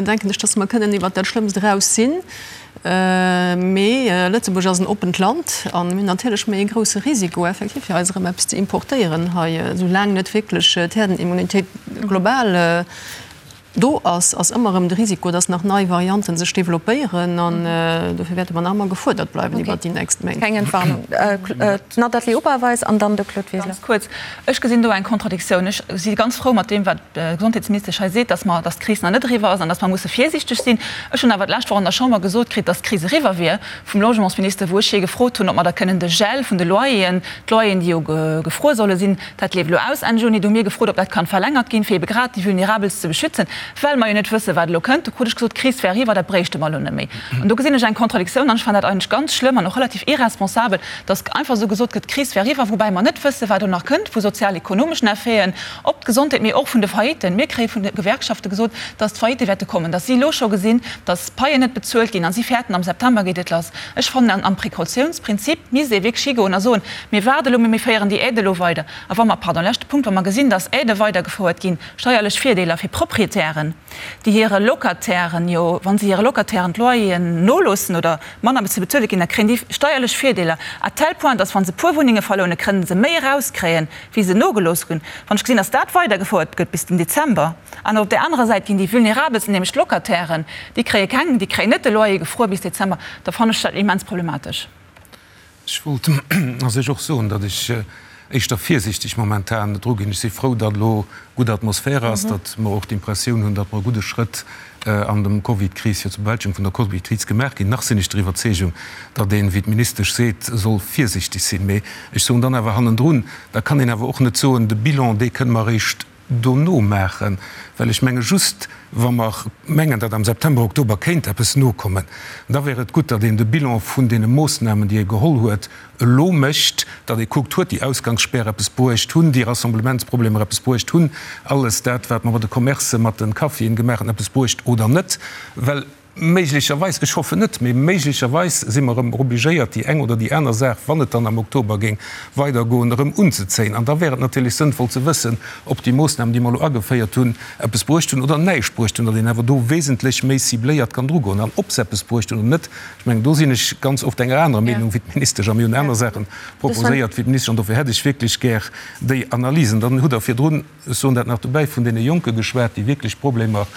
B: denken ech, dass mer kënnen iwwert dat Schlëmmst eraus sinn. Mee Lëtzebuerg ass en oppent Land a mir hunn natierlech méi e grousse Risiko effektiv, fir eis erëm eppes ze importéieren hei, soulaang net wierklech d'Herdenimmunitéit global Do ass ass ëmmer erëm de Risiko, dass nach nei Varianten sech developpéieren an dofir wäerte mer nach ëmmer gefuerdert bleiwen iwwert déi nächst Méint.
A: Keng Entwarnung. D'Nathalie Oberweis an dann de Claude Wiseler.
E: Ganz kuerz, Ech gesinn do eng Kontradiktioun. Ech si ganz frou mat deem, wat d'Gesondheetsministesch hei seet, dass mer, dass d'Kris nach net eriwwer ass an dass mer musse virsiichteg sinn. Ech hunn awer d'lescht Woch an der Chamber gesot kritt, dass d'Kris eriwwer wier, vum Logementsminister, wou ech hie gefrot hunn, ob mer da kënnen de Gel vun de Loyeren, d'Loyeren, déi jo gefruer solle sinn, Dat leeft elo aus Enn Juni. Do hu mir gefrot, ob dat kann verlängert ginn, fir ebe grad déi Vulnerabelst ze beschützen, well mer jo net wëssen, wat elo kënnt. Do krut ech gesot, d'Kris wär eriwwer, dat bréichte mer elo net méi. An do gesinn ech eng Kontradiktioun an ech fannen dat eigentlech ganz schlëmm an och relativ irresponsabel, dass einfach esou gesot gëtt, d'Kris wär eriwwer, woubäi mer net wëssen, wat elo nach kënnt vu sozial-ekonomeschen Effeten op d'Gesondheet, mee och vun de Failliten. Mir kréie vun de Gewerkschafte gesot, dass d'Faillitte wäerte kommen, dass si elo scho gesinn, dass d'Paien net bezuelt ginn a si fäerten, am September geet et lass. Ech fannen, am Précautiounsprinzip misst ee wierklech higoen a soen, Mir waarde elo, mee mir féieren déi Aide elo weider. A wa mer, pardon, leschte Punkt, wa mer gesinn, dass Aidë weidergefouert ginn, steierlech Virdeeler fir Proprietären, déi hire Locatairen jo, wa se hire Locatairen d'Loyeren noloossen oder manner ze bezuele ginn, da kréien déi steierlech Virdeeler à tel point, dass wa se puer Wunnenge verlounen, kënnen se méi erauskréien, wéi se nogelooss hunn. Wann ech gesinn, dass dat weidergefouert gëtt bis den Dezember, an op där anerer Säit ginn déi Vulnerabelsten, nämlech d'Locatairen, déi kréie keng, déi kréien net de Loyer gefruer bis Dezember, da fannen ech dat immens problematesch.
G: Ech wollt a sech och soen, datt ech éischter virsiichteg momentan dru ginn. Ech si frou, datt elo gutt Atmosphär ass, datt mer och d'Impressioun hunn, datt mer e gudde Schrëtt an dem Covid-Kris, fir zur Bewältegung vun der Covid-Kris gemaach ginn. Nach sinn ech der Iwwerzeegung, datt een, wéi d'Ministesch seet, soll virsiichteg sinn. Mee ech soen dann awer hannendrun, da kann een awer och net soen, de Bilan, dee kënne mer eréischt dono maachen, well ech menge just, wa mer mengen, datt am September, Oktober kéint eppes nokommen, da wär et gutt, datt een de Bilan vun deene Moossnamen, déi ee geholl huet, elo mécht, datt ee kuckt, huet déi Ausgangsspär eppes bruecht, hunn déi Rassemblementsproblemer eppes bruecht, hunn alles dat, wat mer mat de Commercen, mat de Caféen gemaach hunn, eppes bruecht oder net, well Méiglecherweis, ech hoffen net, mee méiglecherweis si mer erëm obligéiert, déi eng oder déi aner Saach, wann et dann am Oktober géing weidergoen, erëm unzezéien. An da wär et natierlech sënnvoll ze wëssen, ob déi Moossnamen, déi mer elo ageféiert hunn, eppes bruecht hunn oder näischt bruecht hunn, datt een awer do wesentlech méi cibléiert kann drugoen. An ob se eppes bruecht hunn oder net, ech mengen, do sinn ech ganz oft enger anerer Meenung wéi d'Ministesch a mir hunn aner Saache proposéiert wéi d'Ministesch. An dofir hätt ech wierklech gär déi Analysen. Dann hutt Der virdrun, Ech soen dat nach dobäi, vun deene Jonke geschwat, déi wierklech Problemer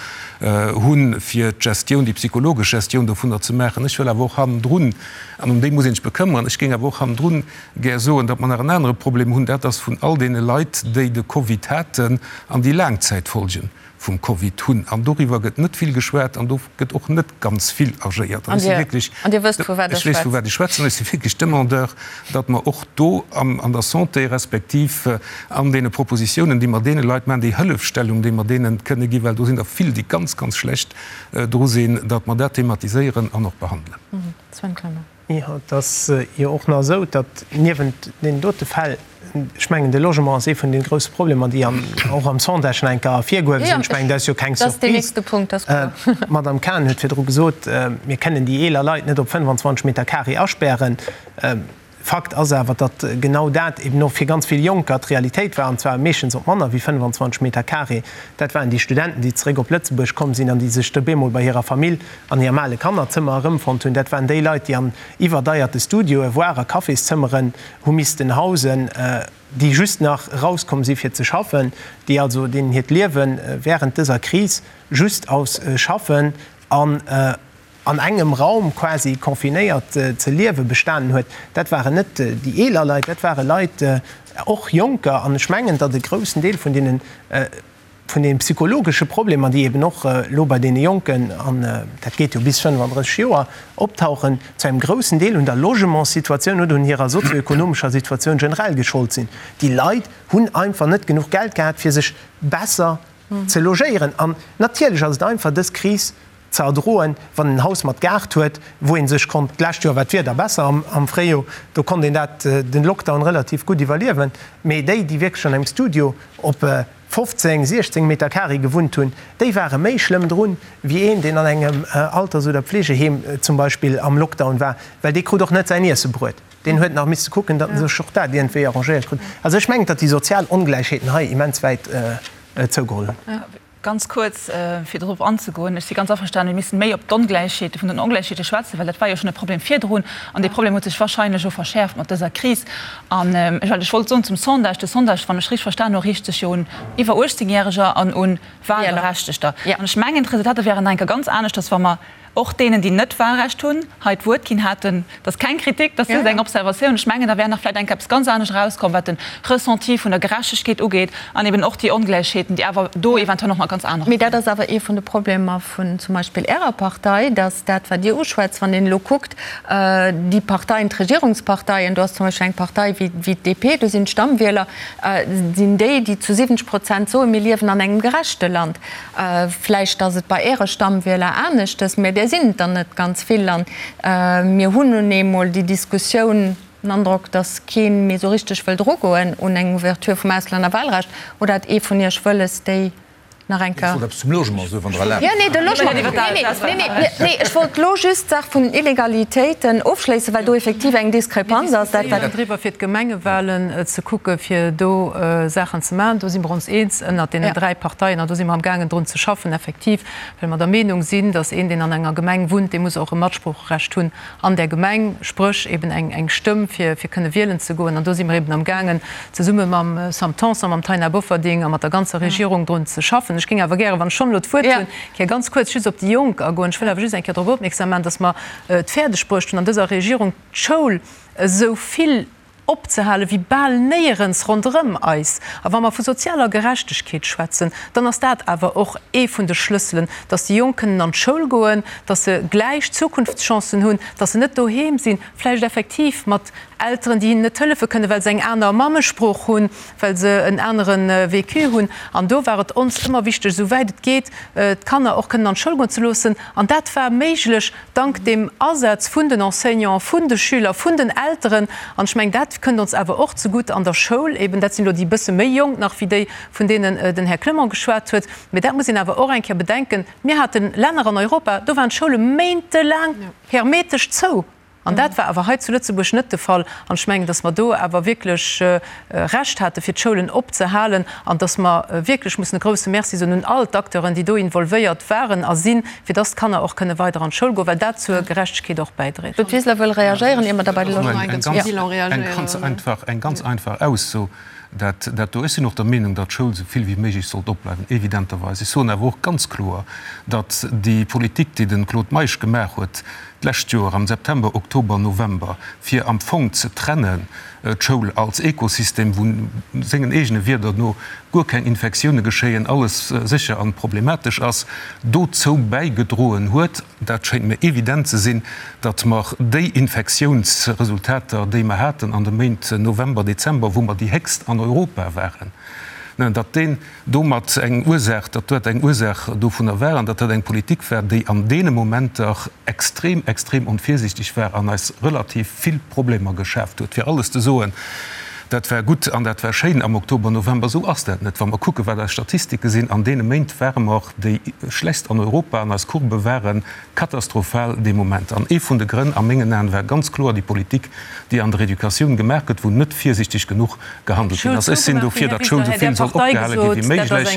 G: hunn, fir d'Gestioun, déi psychologesch Gestioun dovunner ze maachen. Ech wëll awer och hannendrun, an ëm déi muss een sech bekëmmeren, ech géing awer och hannendrun gär soen, datt mer nach en anere Problem hunn, dat ass vun all deene Leit, déi de Covid haten an déi Laangzäitfolgen vum Covid hunn. An doriwwer gëtt net vill geschwat an do gëtt och net ganz vill agéiert. An ech si wierklech,
A: An Dir wësst, vu wat ech
G: ech weess, vu wat ech schwätzen, ech si wierklech Demandeur, datt mer och do an der Santé respektiv an deene Propositiounen, déi mer deene Leit maachen, déi Hëllefstellung, déi mer deene kënne ginn, well do sinn der vill, déi ganz, ganz schlecht dru sinn, datt mer dat thematiséieren an och behandelen.
A: Sven Clement.
F: Jo, et ass jo och nach esou, datt niewent deenen dote Fäll, ech mengen de Logement ass ee vun deene grousse Problemer, déi och am Sondage nach eng Kéier ervirgehuewe sinn, ech mengen dat ass jo keng Surprise. D'Madame Cahen huet virdru gesot, mir kënnen déi eeler Leit net op 25 Meter carré aspären. Fakt ass awer, datt genau dat eben och fir ganz vill Jonker d'Realitéit war, an zwar meeschtens op manner wéi 25 Meter carré. Dat waren déi Studenten, déi zeréck op Lëtzebuerg komm sinn an déi sech da bemol bei hirer Famill an hirem ale Kannerzëmmer erëmfonnt hunn. Dat waren déi Leit, déi an iwwerdeierte Studioe, voire a Cafészëmmeren hu missten hausen, déi just nach erauskomm si fir ze schaffen, déi also, deenen hiert Liewe während dëser Kris just aus Schaffen an an engem Raum quasi confinéiert ze liewe bestanen huet, dat waren net déi eeler Leit, dat ware Leit, och Jonker. An ech mengen, datt e groussen Deel vun deenen, vun deene psychologesche Problemer, déi eben och elo bei deene Jonken, an dat geet jo bis 35 Joer, optauchen, zu engem groussen Deel un der Logementssituatioun oder un hirer sozioekonomescher Situatioun generell geschollt sinn. Déi Leit hunn einfach net genuch Geld gehat, fir sech besser ze logéieren. An natierlech ass et einfach, dës Kris ze erdroen, wann een en Haus mat Gaart huet, wou ee sech konnt, d'lescht Joer war d'Wieder besser am Fréijoer, do konnt een dat, den Lockdown relativ gutt iwwerliewen, mee déi, déi wierklech an engem Studio op 15, 16 Meter carré gewunnt hunn, déi ware méi schlëmm drun, wéi een, deen an engem Alters oder Pflegeheem zum Beispill am Lockdown war, well dee krut och net säin Iesse bruet. Deen huet nach misste kucken, datt en sech och dat iergendwéi arrangéiert krut. Also ech mengen, datt déi sozial Ongläichheeten hei immens wäit zougeholl hunn.
E: Ganz kuerz, fir dorop anzegoen, Ech si ganz averstanen, mir missten méi op d'Ongläichheete vun den Ongläichheete schwätzen, well dat war jo schonn e Problem virdrun an dee Problem huet sech wahrscheinlech elo verschäerft mat dëser Kris. An ech, wat ech wollt soen zum Sondage, De Sondage, wann ech richteg verstan hu, riicht sech jo un iwwer 18 Järeger an un Wahlberechtegter. An ech mengen, d'Resultater wären nach eng Kéier ganz aneschters, wa mer och deenen, déi net Wahlrecht hunn, hei d'Wuert ginn hätten. Dat ass keng Kritik, dat ass just eng Observatioun. Ech mengen, da wär nach vläicht eng Kéier eppes ganz anescht erauskomm, wat de Ressenti vun der Gerechtegkeet ugeet an eben och déi Ongläichheeten, déi awer do eventuell och nach ganz anerer
A: Mee dat ass awer ee vun de Problemer vun zum Beispill Ärer Partei, dass dat, wat Dir uschwätzt, wann een elo kuckt, déi Parteien, d'Regierungsparteien, do ass zum Beispill eng Partei wéi d'DP, do sinn d'Stammwieler, sinn déi, déi zu 70 Prozent soen, mir liewen an engem gerechte Land. Vläicht ass et bei Äre Stammwieler aneschtes, mä där sinn et der net ganz vill. An mir hunn nun eemol déi Diskussioun, den Androck, datt kee méi esou richteg wëllt erugoen un eng Ouverture vum Auslännerwahlrecht. Oder hat ee vun Iech wëlles, déi nach eng
C: Kéier. Ech wollt eppes zum Logement soen, wann Der erlaabt.
A: Jo, nee, de Logement, nee, nee, nee, nee, ech wollt elo just d'Saach vun den Illegalitéiten ofschléissen, well do effektiv eng Diskrepanz ass.
B: Dat, wat. Driwwer, fir d'Gemengewahlen ze kucken, fir do Saachen ze maachen. Do si mer ons eens ënnert deenen dräi Parteien an do si mer amgaangen drun ze schaffen, effektiv, well mer der Meenung sinn, datt een, deen an enger Gemeng wunnt, dee muss och e Matsproocherecht hunn an där Gemeng, spréch eben eng eng Stëmm, fir fir kënne wielen ze goen. An do si mer eben amgaangen, zesumme mam Sam Tanson, mam Taina Bofferding a mat der ganzer Regierung drun ze schaffen. Ech géing awer gären, wann ech schonn elo d'Wuert hunn, Kéier ganz kuerz just op déi Jonk agoen. Ech wëll awer just eng Kéier drop opmierksam maachen, datt mer et fäerdeg bruecht hunn, an dëser Regierung d'Schoul esou vill opzehale wéi bal néierens ronderëm eis. A wa mer vu sozialer Gerechtegkeet schwätzen, dann ass dat awer och ee vun de Schlësselen, dass déi Jonk kënnen an d'Schoul goen, dass se gläich Zukunftschancen hunn, dass se net doheem sinn, vläicht effektiv mat Elteren, déi hinnen net hëllefe kënnen, well se eng aner Mammesprooch hunn, well se en anere Vécu hunn. An do war et ons ëmmer wichteg, esou wäit et geet, d'Kanner och kënnen an d'Schoul goen ze loossen. An dat war méiglech dank dem Asaz vun den Enseignanten, vun de Schüler, vun den Elteren. An ech mengen, dat kënnt ons awer och zegutt an der Schoul eben. Dat sinn elo déi bësse méi Jonk nach wéi déi, vun deenen den Här Clement geschwat huet. Mee dat muss een awer och eng Kéier bedenken. Mir hate Länner an Europa, do waren d'Schoule méintelaang hermetesch zou. An dat war awer hei zu Lëtzebuerg net de Fall. An ech mengen, datt mer do awer wierklech Recht hate fir d'Schoulen opzehalen an datt mer wierklech mussen e grouse Merci soen un all d'Acteuren, déi do involvéiert waren a sinn, fir datt d'Kanner och kënne weider an d'Schoul goen, well dat zur Gerechtegkeet och bäidréit.
A: Claude Wiseler wëll reagéieren, ier mer da bei de Logement.
G: Eng ganz einfach Ausso, dat dat do. Ech sinn och der Meenung, datt d'Schoul esou vill wéi méiglech sollt opbleiwen, evidenterweis. Ech soen awer och ganz kloer, datt déi Politik, déi de Claude Meisch gemaach huet d'lescht Joer am September, Oktober, November, fir am Fong ze trennen d'Schoul als Ekosystem, wou sengen eegene Wierder no guer keng Infektioune geschéien, alles sécher an problematesch ass, dozou bäigedroen huet, dat schéint mir evident ze sinn, datt mer déi Infektiounsresultater, déi mer haten an de Méint November, Dezember, wou mer déi héchst an Europa waren, datt deen domat eng Ursaach, datt dat eng Ursaach dovunner war an datt dat eng Politik war, déi an deene Momenter extrem, extrem onvirsiichteg war an eis relativ vill Problemer geschaaft huet. Fir alles ze soen. Dat war gutt an dat war schéin am Oktober, November. Esou ass dat net. Wa mer kucken, wat eis Statistike sinn, an deene Méint ware mer déi schlechtst an Europa an eis Courbë ware katastrophal dee Moment. An ee vun de Grënn a mengen Aen war ganz kloer déi Politik, déi an der Educatioun gemaach gëtt, wou net virsiichteg genuch gehandelt ginn ass. Ech sinn dofir, datt d'Schoul esou vill soll opgehale gi wéi méiglech.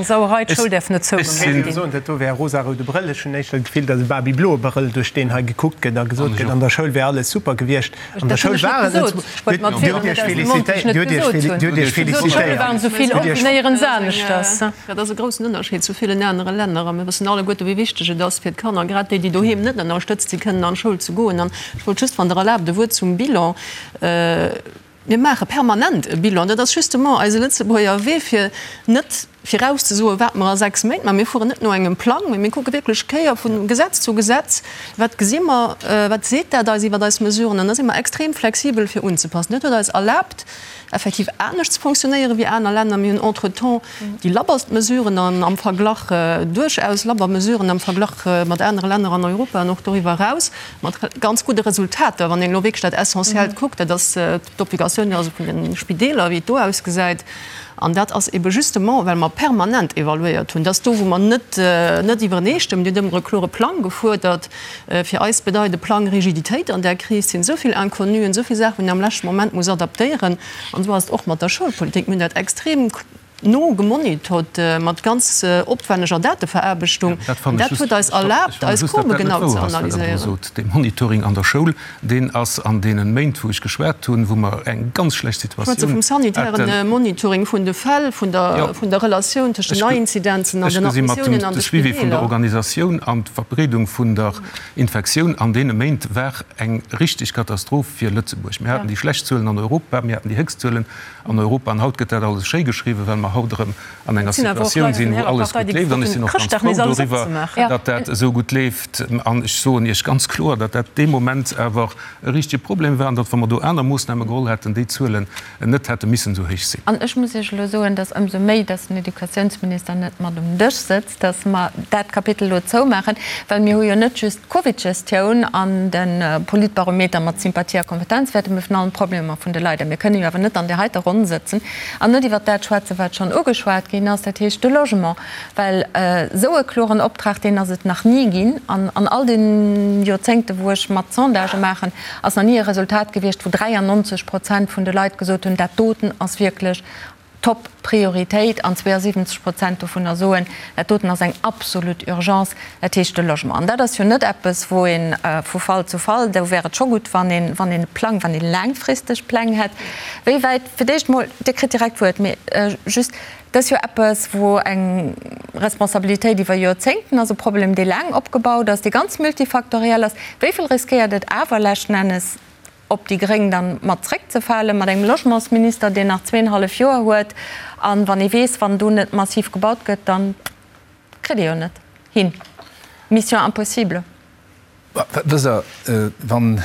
G: Ech sinn.
F: Dat do wär e rosaroude Brëll. Ech hunn éischter d'Gefill, datt e babybloe Brëll, duerch deen hei gekuckt gëtt a gesot gëtt, an der Schoul wär alles super gewiescht. An der Schoul war et net. Dir hutt Iech félicitéiert. Dir hutt Iech félicitéiert.
B: Dat ass e groussen Ënnerscheed zu villen anere Länner. A mir wëssen alleguerte wéi wichteg et ass fir d'Kanner, grad déi, déi doheem net ënnerstëtzt sinn, kënnen an d'Schoul ze goen. An ech wollt just, wann Der erlaabt, e Wuert zum Bilan. Mir maache permanent e Bilan. Dat ass justement eise Lëtzebuerger Wee, fir net virauszesoen, wat mer a 6 Méint maachen. Mir fueren net no engem Plang, mee mir kucke wierklech Kéier vu Gesetz zu Gesetz, wat gesi mer, wat seet dat eis iwwer eis Mesuren. An da si mer extrem flexibel fir unzepassen. Dat huet eis erlaabt, effektiv anescht ze fonctionnéieren wéi aner Länner. Mir hunn entretemps déi labberst Mesuren an am Verglach, duerchaus labber Mesuren am Verglach mat anere Länner an Europa an och doriwwer eraus, mat ganz gudde Resultater, wann een elo wierklech dat Essentiellt kuckt, dat ass d'Obligatioun also vun de Spideeler, wéi et do ausgesäit. An dat ass ebe justement, well mer permanent evaluéiert hunn, dass do, wou mer net net iwwereneestëmmen, Dir hutt ëmmer e klore Plang gefuerdert, fir eis bedeit e Plang Rigiditéit an där Kris, sinn esou vill Inconnuen, esou vill Saachen, wou een am leschte Moment muss adaptéieren. An esou ass et och mat der Schoulpolitik. Mir hunn dat extrem no gemonitort mat ganz opwänneger Dateveraarbechtung. An dat huet eis erlaabt, eis Courbe genau ze analyséieren.
G: Dee Monitoring an der Schoul, deen ass an deene Méint, wou ech geschwat hunn, wou mer eng ganz schlecht Situatioun
B: haten. Ech schwätze vum sanitären Monitoring vun de Fäll, vun der Relatioun tëscht den Neiinzidenzen an den Admissiounen an de
G: Ech gesi mat dem Suivi vun der Organisatioun an d'Verbreedung vun der Infektioun an deene Méint war eng richteg Katastroph fir Lëtzebuerg. Mir haten déi schlecht Zuelen an Europa, mir haten déi héchst Zuelen an Europa. An haut gëtt dat alles schéi geschriwwen, well mer haut erëm an enger Situatioun sinn, wou alles gutt leeft. An ech sinn och ganz frou doriwwer, datt dat esou gutt leeft. An ech soen Iech ganz kloer, datt dat dee Moment awer e richtege Problem war an datt, wa mer do aner Moossname geholl hätten, déi Zuelen net hätte missen esou héich sinn.
A: An ech muss Iech elo soen, datt ëmsou méi, datt den Educatiounsminister net mat um Dësch sëtzt, dass mer dat Kapitel elo zoumaachen, well mir hu jo net just d'Covidgestioun an de Politbarometer mat Sympathie a Kompetenzwäerten, mee vun allen Problemer vun de Leit. A mir kënnen jo awer net an där heiter Ronn sëtzen an net iwwert dat schwätzen, wat schonn ugeschwat ginn ass, dat heescht de Logement. Well esou e kloren Optrag, deen ass et nach ni ginn. An an all de Joerzéngte wou ech mat Sondagë maachen, ass nach ni e Resultat gewiescht, wou 93 Prozent vun de Leit gesot hunn, dat doten ass wierklech Top Prioritéit an 72 Prozent dovunner soen, dat doten ass eng absolut Urgence, dat heescht de Logement. An dat ass jo net eppes, wou ee vu Fall zu Fall, do wär et scho gutt, wann een, wann een e Plang, wann ee laangfristeg Pläng hätt. Wéi wäit, fir d'éischt emol, Dir kritt direkt d'Wuert, mee just, dat ass jo eppes, wou eng Responsabilitéit iwwer Joerzéngten ass, e Problem, dee laang opgebaut ass, dee ganz multifaktoriell ass. Wéi vill riskéiert et awer leschten Ennes, op déi Gréng dann mat zréckzefalen, mat engem Logementsminister, deen nach zweenhallef Joer huet, an wann ee weess, wann do net massiv gebaut gëtt, dann kritt ee jo net hin. Mission impossible.
C: Wësst Der, wann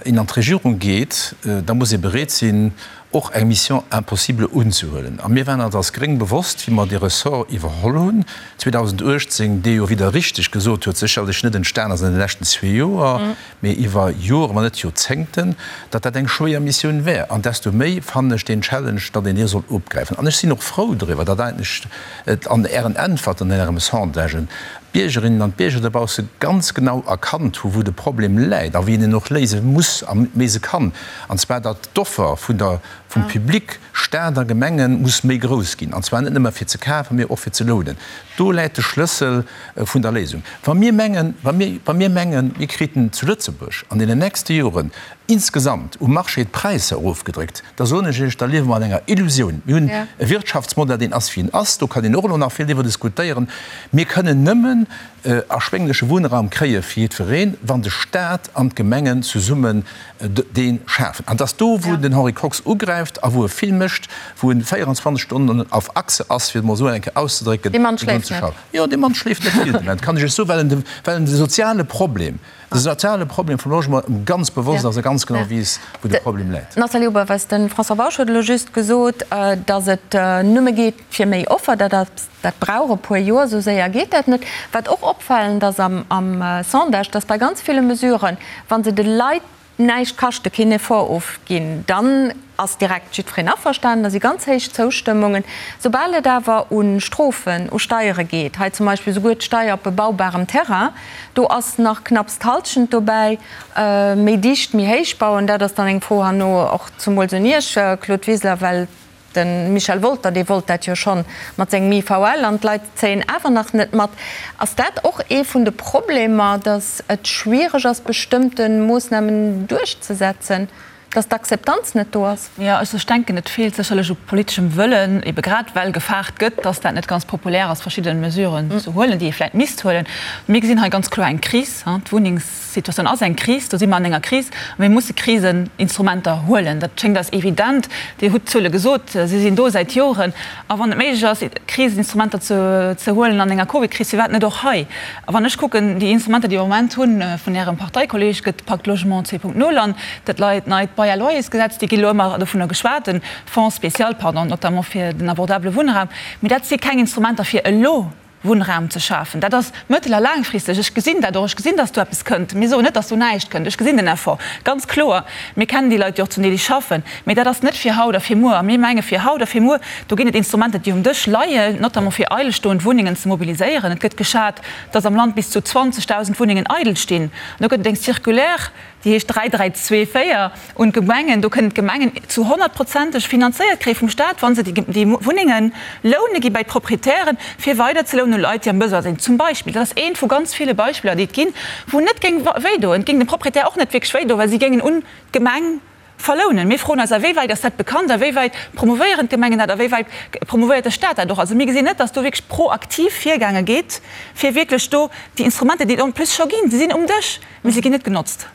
C: een an d'Regierung geet, da muss ee bereet sinn, och eng Mission impossible unzehuelen. A mir waren eis als Gréng bewosst, wéi mer dee Ressort iwwerholl hunn 2018, dee jo, wéi Der richteg gesot huet, sécherlech net entstan ass an de leschten zwee Joer, mee iwwer Joren, wann net Joerzéngten, datt dat eng schwéier Missioun wär. An desto méi fannen ech deen Challenge, datt een dee soll opgräifen. An ech sinn och frou driwwer, datt eigentlech et an Ären Äntwerten, an Ärem Sondagen, d'Biergerinnen an d'Bierger dobausse ganz genau erkannt hu wou de Problem läit a wéi een en och léise muss a léise kann, an zwar datt d'Offer vun der, vum Public, Staat a Gemengen, muss méi grouss ginn, an zwar net nëmme fir ze kafen, mee och fir ze lounen. Do läit de Schlëssel vun der Léisung. Wa mir mengen, wa mir, wa mir mengen, mir kriten zu Lëtzebuerg an deenen nächste Joren insgesamt um Marché d'Präisser erofgedréckt, da soen ech Iech, da liewe mer an enger Illusioun. Mir hunn e Wirtschaftsmodell, deen ass, wéi en ass. Do kann een och elo nach vill driwwer diskutéieren. Mir kënnen nëmmen erschwéngleche Wunnraum kréie fir jiddwereen, wann de Stat an d'Gemengen zesummen dee schafen. An et ass do, wou den Henri Kox ugräift a wou e vill mécht, wou en 24 Stonnen auf Achse ass, fir et emol esou eng Kéier auszedrécken,
A: Dee Mann schléift net.
C: Jo, dee Mann schléift net vill de Moment, kann ech Iech soen, well en de, well en de soziale Problem, de soziale Problem vum Logement em ganz bewosst ass a ganz genau weess, wou de Problem läit.
A: Nathalie Oberweis, De François Bausch huet elo just gesot, datt et nëmme geet fir méi Offer. Dat ass, dat brauch e puer Joer, esou séier geet dat net. Wat och opfalend ass am, am Sondage, datt bei ganz ville Mesuren, wa se de Leit. näischt kaschten, keen Effort ofginn, dann ass direkt jiddwereen averstanen, da si ganz héich Zoustëmmungen. Soubal et awer u Strofen, u Steiere geet, hei zum Beispill souguer d'Steier op bebaubarem Terrain, do ass nach knapps d'Halschent dobäi, méi dicht, méi héich bauen, dat ass dann eng Fro herno och zumools un Iech, Claude Wiseler, well De Michel Wolter, dee wollt dat jo schonn mat sengem IVL an d'Leit zéien awer nach net mat. Ass dat och ee vun de Problemer, datt et schwiereg ass, bestëmmte Moossnamen duerchzesetzen, datt d'Akzeptanz net do ass?
E: Jo, also ech denken, et feelt sécherlech u politeschem Wëllen, ebe grad well gefaart gëtt, datt dat net ganz populär ass, verschidde Mesuren ze huelen, déi ee vläicht misst huelen. Mir gesinn hei ganz kloer eng Kris. D'Wunnengs. D'Situatioun ass eng Kris, do si mer an enger Kris a mir musse Kriseninstrumenter huelen. Dat schéngt eis evident. Dir hutt d'Zuele gesot, si sinn do säit Joren. A wann et méiglech ass, Kriseninstrumenter ze huelen an enger Covidkris, firwat net och hei? A wann ech kucken, déi Instrumenter, déi mer am Moment hunn, vun Ärem Parteikolleeg gëtt d'Pacte Logement 2.0 an dat neit Bail-à-loyers-Gesetz, déi gi elo ëmmer dovunner geschwat, den Fonds spécial, pardon, notamment fir den abordabele Wunnraum, mee dat si keng Instrumenter fir elo. Wunnraum ze schafen. Dat ass mëttel a laangfristeg. Ech gesinn dat och. Ech gesinn, dass do eppes kënnt. Mir soen net, dass do näischt kënnt. Ech gesinn den Effort ganz kloer. Mir kennen déi Leit, déi och zum Deel déi schaffen. Mee dat ass net fir haut a fir muer. A mir menge fir haut a fir muer, do ginn et Instrumenter, déi um Dësch leien, notamment fir eidelstoend Wunnengen ze mobiliséieren. Et gëtt geschat, dass am Land bis zu 20.000 Wunnengen eidel stinn. An do gëtt et eng Circulaire, déi heescht 3324, un d'Gemengen. Do kënnen d'Gemengen zu honnertprozenteg finanzéiert kréie vum Stat, wa se déi Wunnenge loune gi bei d'Proprietären, fir weider ze lounen u Leit, déi am Besoin sinn. Zum Beispill. Dat ass eent vu ganz ville Beispiller, déi et ginn, wou net géing wéidoen. Et géing dem Proprietär och net wierklech wéidoen, well si géingen un d'Gemeng verlounen. Mir froen eis, A wéi wäit ass dat bekannt? A wéi wäit promouvéieren d'Gemengen dat? A wéi wäit promouvéiert de Stat dat och? Also mir gesinn net, datt do wierklech proaktiv virgaange gétt, fir wierklech do déi Instrumenter, déi et en plus scho ginn, se sinn um Dësch, Mee se ginn net genotzt.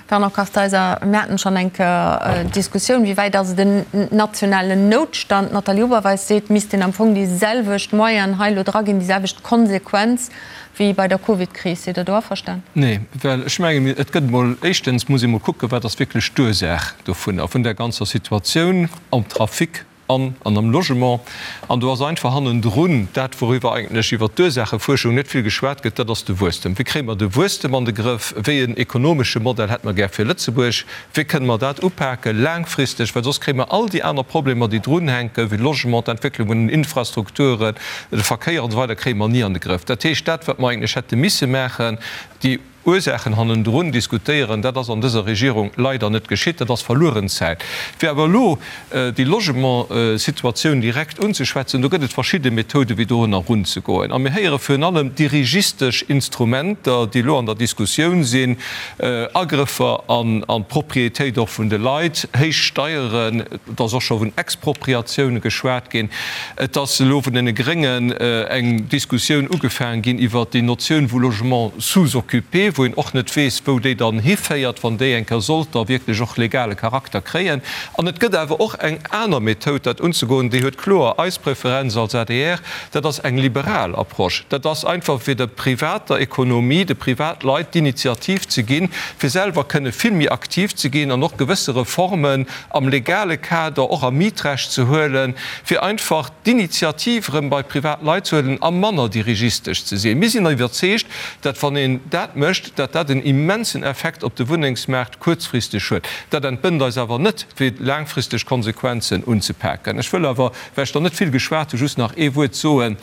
A: Fernand Kartheiser, Mir haten schonn eng Kéier d'Diskussioun, wéi wäit ass et en nationalen Noutstand? D'Nathalie Oberweis seet, et misst een am Fong déi selwecht Moyenen hei elo draginn, déi selwecht Konsequenz wéi bei der Covid-Kris. Sidd Der do averstan?
D: Nee, well ech mengen, et gëtt emol, éischtens muss ee mol kucken, wat ass wierklech d'Ursaach dovunner, vun där ganzer Situatioun am Trafic an an am Logement. An do ass einfach hannendrun dat, wouriwwer eigentlech iwwert d'Ursaachefuerschung net vill geschwat gëtt, dat ass de Wuesstem. Wéi kréie mer de Wuesstem an de Grëff? Wéi en ekonomesche Modell hätte mer gär fir Lëtzebuerg? Wéi kënne mer dat upake laangfristeg? Well soss kréie mer all déi aner Problemer, déi drunhänken, wéi Logement, d'Entwécklung vun den Infrastrukturen, de Verkéier an esou weider, kréie mer ni an de Grëff. Dat heescht, dat, wat mer eigentlech hätte misse maachen, déi Ursaachen hannendrun diskutéieren, dat ass an dëser Regierung leider net geschitt. Dat ass verlueren Zäit. Fir awer elo déi Logementssituatioun direkt unzeschwätzen, do gëtt et verschidde Methoden, wéi dorunner erunzegoen. A mir héiere virun allem dirigistesch Instrumenter, déi elo an der Diskussioun sinn, Agrëffer an d'Propriétéit och vun de Leit, héich Steieren, et ass och scho vun Expropriatioune geschwat ginn. Et ass elo vun deene Gréngen eng Diskussioun ugefaangen ginn iwwert déi Notioun vu Logement sous-occupé, wou een och net weess, wou déi dann hiféiert, wann déi eng Kéier sollt da wierklech och legale Charakter kréien. An et gëtt awer och eng aner Methoud, dat unzegoen, déi huet kloer eis Preferenz als adr, dat ass eng liberal Approche. Dat ass einfach, fir der privater Ekonomie, de Privatleit d'Initiativ ze ginn, fir selwer kënne vill méi aktiv ze ginn an och gewësse Reformen am legale Kader, och am Mietrecht ze huelen, fir einfach d'Initiativ erëm bei privat Leit ze huelen a manner dirigistesch ze sinn. Mir sinn iwwerzeegt, datt wann een dat mécht, datt dat en immensen Effekt op de Wunnengsmaart kuerzfristeg huet. Dat entbënnt eis awer net, fir laangfristeg Konsequenzen unzepaken. Ech wëll awer, well ech der net vill geschwat hunn, just nach ee Wuert soen,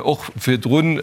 D: och virdrun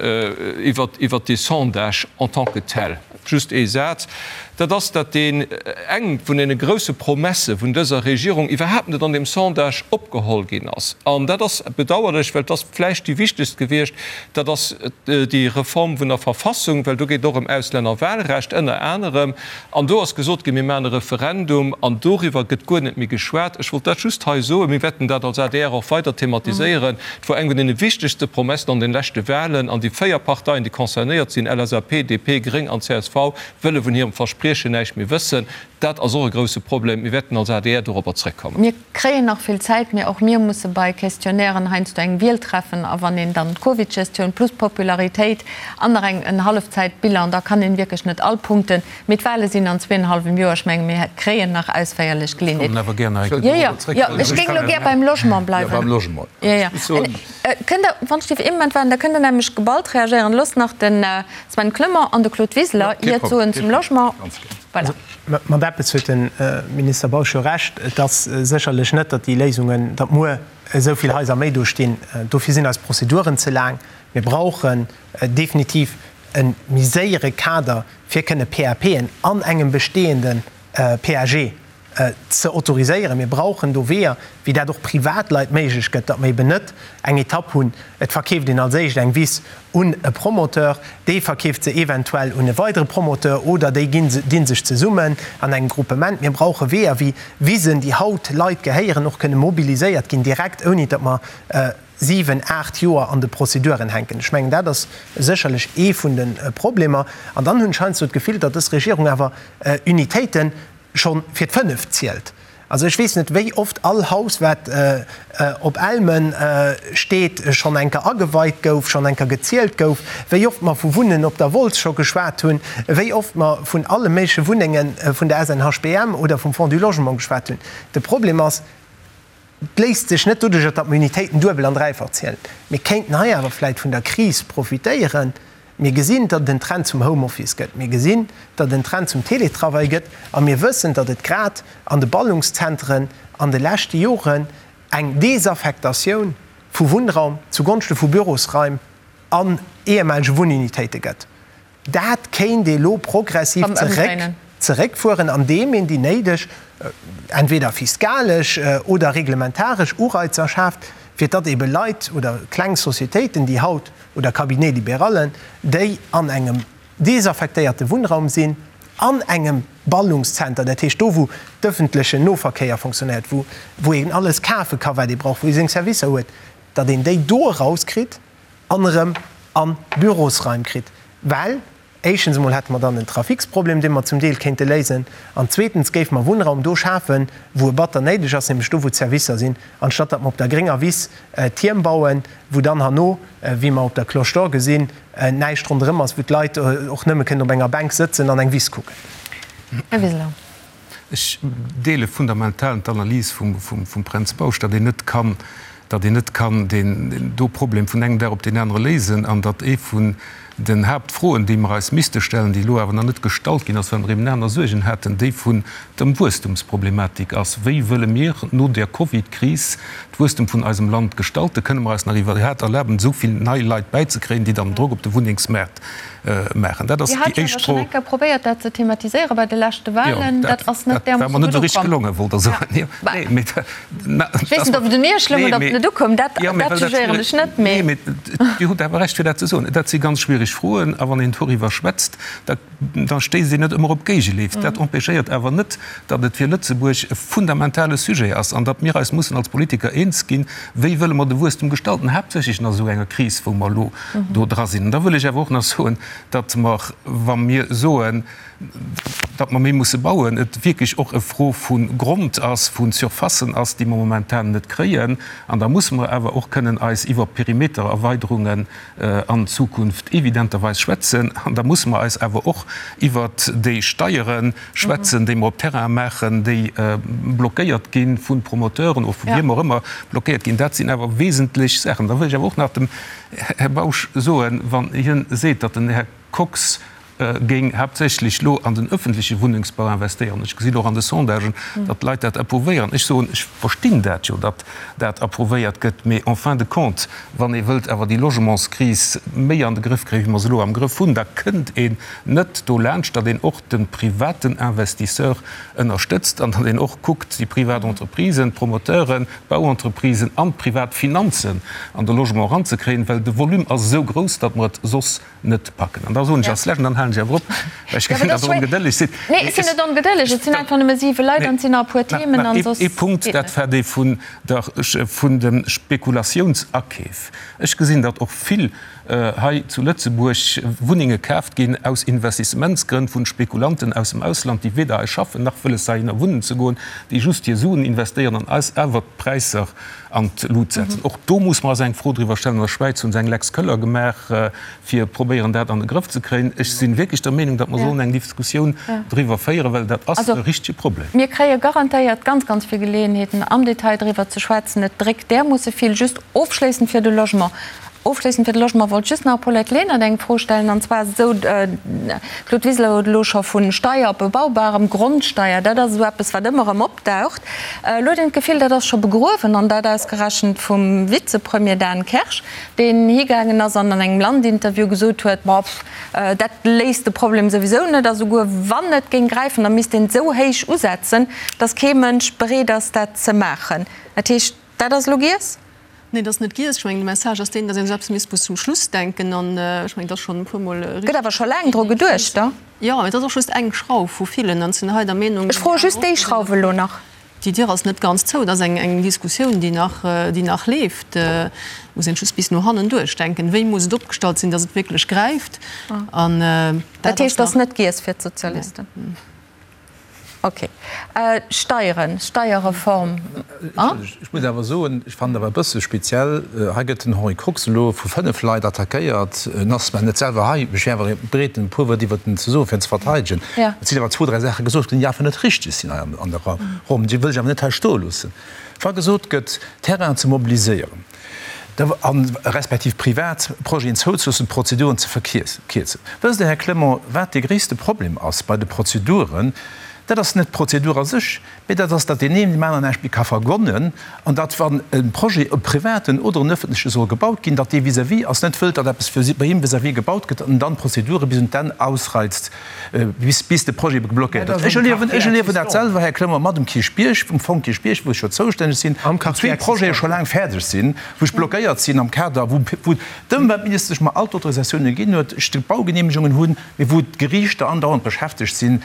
D: iwwert dee Sondage en tant que tel. Just ee Saz, dat ass, datt deen eng vun deene grouse Promesse vun dëser Regierung iwwerhaapt net an deem Sondage opgeholl ginn ass. An dat ass bedauerlech, well et ass vläicht déi wichtegst gewiescht, dat ass déi Reform vun der Verfassung, well do geet et och ëm Auslännerwahlrecht ënner anerem. An do ass gesot ginn, mir maachen e Referendum, an doriwwer gëtt guer net méi geschwat. Ech wollt dat just hei soen. Mir wäerten dat als adr och weider thematiséieren. Et wor eng vun deene wichtegste Promessen an den leschte Wahlen, an déi 4 Parteien, déi concernéiert sinn, LSAP, DP, Gréng an csv, wëlle vun hirem Verspriechen näischt méi wëssen. Dat ass och e grousse Problem. Mir wäerten als adr dorobber zréckkommen.
A: Mir kréien nach vill Zäit, mee och mir musse bei Questionnairen heiansdo eng Wiel treffen. A wann een dann d'Covid-Gestioun plus d'Popularitéit an nach eng en Hallefzäitbilan, da kann een wierklech net all Punkten Mee d'Wahle sinn an zweeënhallwem Joer. Ech menge mir kréien nach ausféierlech Geleeënheet. Jo, jo, jo, ech géing elo gär beim Logement bleiwen. Jo, jo. Kënnt Der, wann ech dierf ee Moment waarden, da kënnt Der nämlech geballt reagéieren. Loosst nach de Sven Clement an de Claude Wiseler Iert soen zum Logement. Voilà.
F: Mat eppes huet de Minister Bausch jo Recht, Et ass sécherlech net, datt déi Léisungen, datt muer esou vill Haiser méi do stinn. Dofir sinn eis Prozeduren ze laang. Mir brauchen definitiv e méi séiere Kader, fir kënne PAPen an engem bestehende PAG ze autoriséieren. Mir brauchen do Weeër, wéi dat och Privatleit méiglech gëtt, datt mer eben net eng Etapp hunn, et verkeeft een als éischt eng Wiss un e Promoteur, dee verkeeft se eventuell un e weidere Promoteur oder déi ginn, dinn sech zesummen an engem Gruppement. Mir brauche Weeër, wéi Wisen, déi haut Leit gehéieren, och kënne mobiliséiert ginn direkt, ouni datt mer siwen, aacht Joer an de Prozeduren hänken. Ech mengen, dat ass sécherlech ee vun de Problemer. An dann hunn ech heiansdo d'Gefill, datt dës Regierung awer Unitéiten scho fir d'fënneft zielt. Also ech weess net, wéi oft all Haus, wat op Elmen steet, schonn eng Kéier ageweit gouf, schonn eng Kéier gezielt gouf, wéi oft mer vu Wunnen op der Wolz scho geschwat hunn, wéi oft mer vun alle méigleche Wunnenge vun der SNHBM oder vum Fonds du Logement geschwat hunn. De Problem ass, Et léisst sech net doduercher, datt mer Unitéiten duebel an dräifach zielen. Mir kéinten hei awer vläit vun der Kris profitéieren. Mir gesinn, datt et en Trend zum Homeoffice gëtt. Mir gesinn, datt et en Trend zum Teletravail gëtt. A mir wëssen, datt et grad an de Ballungszentren an de leschte Joren eng Desaffektatioun vu Wunnraum zugonschte vu Bürosraim an ehemalige Wunnunitéite gëtt. Dat kéint ee lo progressiv zeréckfueren, andeem een déi néideg, entweder fiskalesch oder reglementaresch Ureizer schaaft, fir datt ebe Leit oder kleng Societéiten, déi haut, oder Cabinets libérallen, déi an engem desaffektéierte Wunnraum sinn, an engem Ballungszenter, dat heescht do, wou d'ëffentlechen Noverkéier fonctionnéiert, wou een alles kafe ka wat ee brauch, wou ee seng Servicer huet, datt een déi do erauskritt an erëm a Bürosraim kritt, well éischtens emol hätte mer dann en Traficsproblem, dee mer zum Deel kéinte léisen, an zweetens géife mer Wunnraum do schafen, wou e batter néideg ass, nämlech do, wou d'Servicer sinn, anstatt datt mer op der grénger Wiss Tierm bauen, wou dann herno, wéi mer op der Cloche d'Or gesinn, näischt ronderëm ass, wou d'Leit och nëmme kënnen op enger Bänk sëtzen an eng Wiss kucken.
A: Här Wiseler.
G: Ech deele fundamental d'Analys vum Pränz Bausch, datt een net kann, datt een net kann deen do Problem vun engem Dag op deen anere léisen an datt ee vun den Haaptfroen, déi mer eis misste stellen, déi elo awer nach net gestallt ginn ass, well mer eben aner Suergen haten, déi vun dem Wuesstumsproblematik ass. Wéi wëlle mir no der Covid-Kris d'Wuesstum vun eisem Land gestalten? Kënne mer eis nach iwwerhaat erlaben, esou vill nei Leit bäizekréien, déi dann Drock op de Wunnengsmaart maachen? Dat ass
A: Dir hat
G: déi
A: jo
G: éischt
A: awer schonn
G: Fro.
A: eng Kéier probéiert, dat ze thematiséieren bei de leschte
G: Jo,
A: Wahlen.
G: dat
A: Dat ass net
G: dat war
A: därmoosse
G: mer net
A: gutt
G: esou richteg
A: ukomm.
G: gelongen, wollt Der soen. Jo,
A: Bah,
G: nee, mee na,
A: ech weess
G: dat
A: net, ob et un Iech loung
G: nee,
A: oder ob et
G: mee
A: net ukoum. Dat,
G: jo, mee
A: dat
G: well dat
A: jugéieren
G: schwiereg
A: ech net,
G: nee,
A: mee.
G: mee Dir hutt awer Recht, fir dat ze soen. Dat si ganz schwiereg Froen, a wann een doriwwer schwätzt, da da stéisst een net ëmmer op Géigeleef. Dat empêchéiert awer net, datt et fir Lëtzebuerg e fundamentale Sujet ass an datt mir eis mussen als Politiker eens ginn, Wéi wëlle mer de Wuesstum gestalten, haaptsächlech an esou enger Kris, wou mer elo do dra sinn. An da wëll ech awer och nach soen, datt mer, wa mir soen, datt mer méi musse bauen, et wierklech och e Fro vu Grond ass, vu Surfacen ass, déi mer momentan net kréien. An da musse mer awer och kënnen eis iwwer Perimetererweiderungen an Zukunft evidenterweis schwätzen. An da musse mer eis awer och iwwert déi Steiere schwätzen, déi mer op Terraine maachen, déi blockéiert gi vu Promoteuren oder vu wiem och ëmmer blockéiert ginn. Dat sinn awer wesentlech Saachen. Da wëll ech awer och nach dem Här Bausch soen, wann hien seet, datt den Här Kox géing haaptsächlech elo an den öffentleche Wunnengsbau investéieren, ech gesinn och an de Sondagen, datt d'Leit dat approuvéieren, ech soen, ech verstinn dat jo, datt dat approuvéiert gëtt, mee en fin de compte, wann ee wëllt awer déi Logementskris méi an de Grëff kréien, wéi mer se elo am Grëff hunn, da kënnt een net dolaanscht, datt een och de privaten Investisseur ënnerstëtzt an datt een och kuckt, déi privat Entreprisen, d'Promoteuren, d'Bauentreprisen an d'privat Finanzen an de Logement eranzekréien, well de Volume ass esou grouss, datt mer et soss net packen. An da soen ech als Lescht, an dann halen ech awer op, well ech gesinn, datt Der ongedëlleg sidd.
A: Nee, ech sinn net ongedëlleg, et sinn einfach nëmme siwe Leit an et sinn nach e puer Themen an soss
G: Nach ee Punkt,
A: geet
G: dat
A: net.
G: war dee vun der, vun de Spekulatiounsakeef. Ech gesinn, datt och vill hei zu Lëtzebuerg Wunnenge kaaft ginn aus Investissementsgrënn vun Spekulanten aus dem Ausland, déi weder hei schaffen nach wëlles heihinner wunnen ze goen, déi just hir Suen investéieren an eis awer d'Präisser an d'Lut setzen. Och do muss mer eis eng Fro driwwer stellen. An der Schwäiz hu se eng Lex Köller gemaach, fir probéieren dat an de Grëff ze kréien. Ech si wierklech der Meenung, datt mer sollen eng Diskussioun driwwer féieren, well dat ass e richtege Problem.
A: Mir kréie garantéiert ganz, ganz vill Geleeënheeten, am Detail driwwer ze schwätzen. Et dréckt därmoosse vill. Just ofschléissend fir de Logement. Ofschléissend fir de Logement wollt ech just nach Paulette Lenert eng Fro stellen, an zwar ass et esou, Claude Wiseler huet elo scho vu Steier op bebaubarem Grondsteier, dat ass esou eppes wat ëmmer erëm opdaucht, elo huet een d'Gefill, dat ass scho begruewen, an dat ausgerechent vum Vizepremier Dan Kersch, deen higaangen ass an an engem Land-Interview gesot huet, ma pff, dat léist de Problem souwisou net, a souguer wann et géing gräifen, da misst een et esou héich usetzen, datt kee Mënsch bereet ass dat ze maachen. Dat heescht, dat ass elo giess?
B: Nee, dat ass net giess. Ech mengen, de Message ass deen, datt een esou eppes misst bis zum Schluss denken. An ech mengen, et ass schonn e puermol
A: richteg. Gëtt awer scho laang dru geduecht, da?
B: Jo, mee et ass och just eng Schrauf vu villen. An ech sinn hei der Meenung.
A: Ech froe just déi Schrauf elo nach.
B: Déi Dier ass net ganz zou. Et ass eng Diskussioun, déi nach, déi nach leeft. Et muss een just bis no hannen duerchdenken, wéi muss et opgestallt sinn, datt et wierklech gräift.
A: An dat ass nach. Dat heescht, et ass net giess fir d'Sozialisten? Ok. Steieren, Steierreform.
C: Ech muss awer soen, ech fannen awer e bësse speziell, hei gëtt den Henri Kox elo vu 5 Leit attackéiert. En ass zwar net selwer hei, mee ech wier awer bereet en puer Wuert iwwert en ze soen, fir en ze verteidegen. Et sinn awer zwou, dräi Saache gesot ginn, déi einfach net richteg sinn hei an der Ronn. Déi wëll ech awer net hei stoe loossen. Wa gesot gëtt, Terrainen ze mobiliséieren, a respektiv privat Projeten zouzeloossen, d'Prozeduren ze verkierzen. Wësst Der, Här Clement, wat dee gréisste Problem ass bei de Prozeduren? Dat ass net d'Prozedur a sech, mee dat ass, datt deen een deem aneren näischt méi ka vergonnen an datt, wann e Projet, e privaten oder en öffentleche, soll gebaut ginn, datt dee vis-à-vis ass net wëllt, datt eppes bei him vis-à-vis gebaut gëtt an en dann d'Prozedure bis un d'Enn ausreizt, bis de Projet geblockéiert ass. Ech erliewen, ech erliewen dat selwer, Här Clement, mat dem Kierchbierg, vum Fong Kierchbierg, wou ech jo zoustänneg sinn, wou zwee Projete scho laang fäerdeg sinn, wou ech blockéiert sinn am Kader, wou, wou d'Ëmweltministesch mer all d'Autorisatiounen ginn huet, ech d'Baugenehmegungen hunn, mee wou d'Geriichter andauernd beschäftegt sinn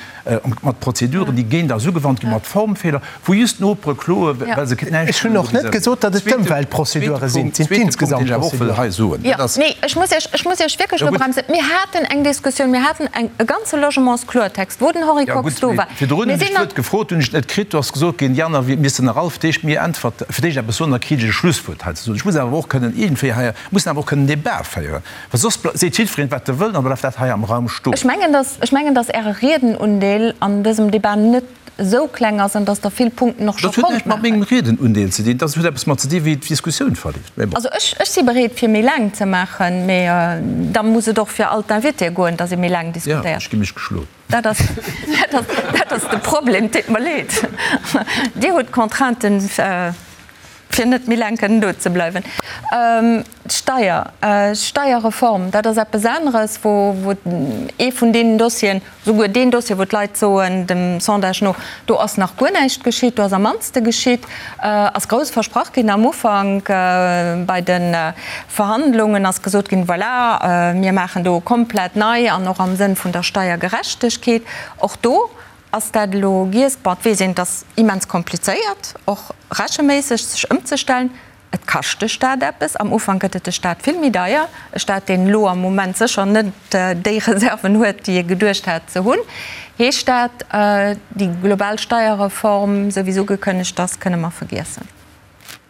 C: mat Prozeduren, déi géint eis ugewannt ginn, mat Formfeeler, wou just d'Nopere kloen, well se näischt
F: Ech hunn och net gesot, datt et d'Ëmweltprozedure sinn, et sinn d'insgesamt
A: Prozeduren. Jo, nee, ech muss Iech, ech muss Iech wierklech elo bremsen. Mir haten eng Diskussioun, mir haten eng, e ganze Logementskloertext, wou den Henri Kox do war.
C: Virdrun hunn ech d'Wuert gefrot, hunn ech et net kritt. Do ass gesot ginn, déi aner missten nach all fir d'éischt mir äntwert, fir d'éischt eppes soen, da kritt ech e Schlusswuert hei ze soen. Ech muss awer och kënnen iergendwéi hei, mussen awer och kënnen Debat féieren, well soss seet jiddwereen, wat e wëll, an da bleift dat hei am Raum stoen.
A: Ech mengen, dass, ech mengen, dass Äre Riedenundeel an dësem Debat net esou kleng ass an dass Der vill Punkten och scho
C: Dat huet
A: konnt
C: näischt mat
A: maachen.
C: mengem Riedenundeel ze dinn, dat huet eppes mat ze dinn, wéi d'Diskussioun verleeft. Mee bon.
A: Also ech, ech si bereet, fir méi laang ze maachen, mee da muss et och fir all d'Invitéë goen, dass ee méi laang
C: Ja,
A: diskutéiert.
C: ech gi mech geschloen.
A: Dat ass, dat ass, dat ass de Problem. Deet mer leed. Dir hutt d'Contrainten, fir net méi laang kënnen do ze bleiwen. D'Steier, d'Steierreform, dat ass eppes aneres, wou, wou ee vun deenen Dossieren, souguer deen Dossier, wou d'Leit soen, dem Sondage no, do ass nach guer näischt geschitt, do ass am mannste geschitt, ass grouss versprach ginn am Ufank bei de Verhandlungen ass gesot ginn, voilà, mir maachen do komplett nei an och am Sënn vun der Steiergerechtegkeet. Och do ass dat elo giess. Bon, et weess een, et ass immens komplizéiert, och recheméisseg sech ëmzestellen. Et kascht de Staat eppes. Am Ufank gëtt et de Staat vill méi deier. E Staat, deen elo am Moment sécher net déi Reserven huet, déi e geduecht hat ze hunn. Heescht dat, déi global Steierreform, esou wéi se ugekënnegt ass, kënne mer vergiessen?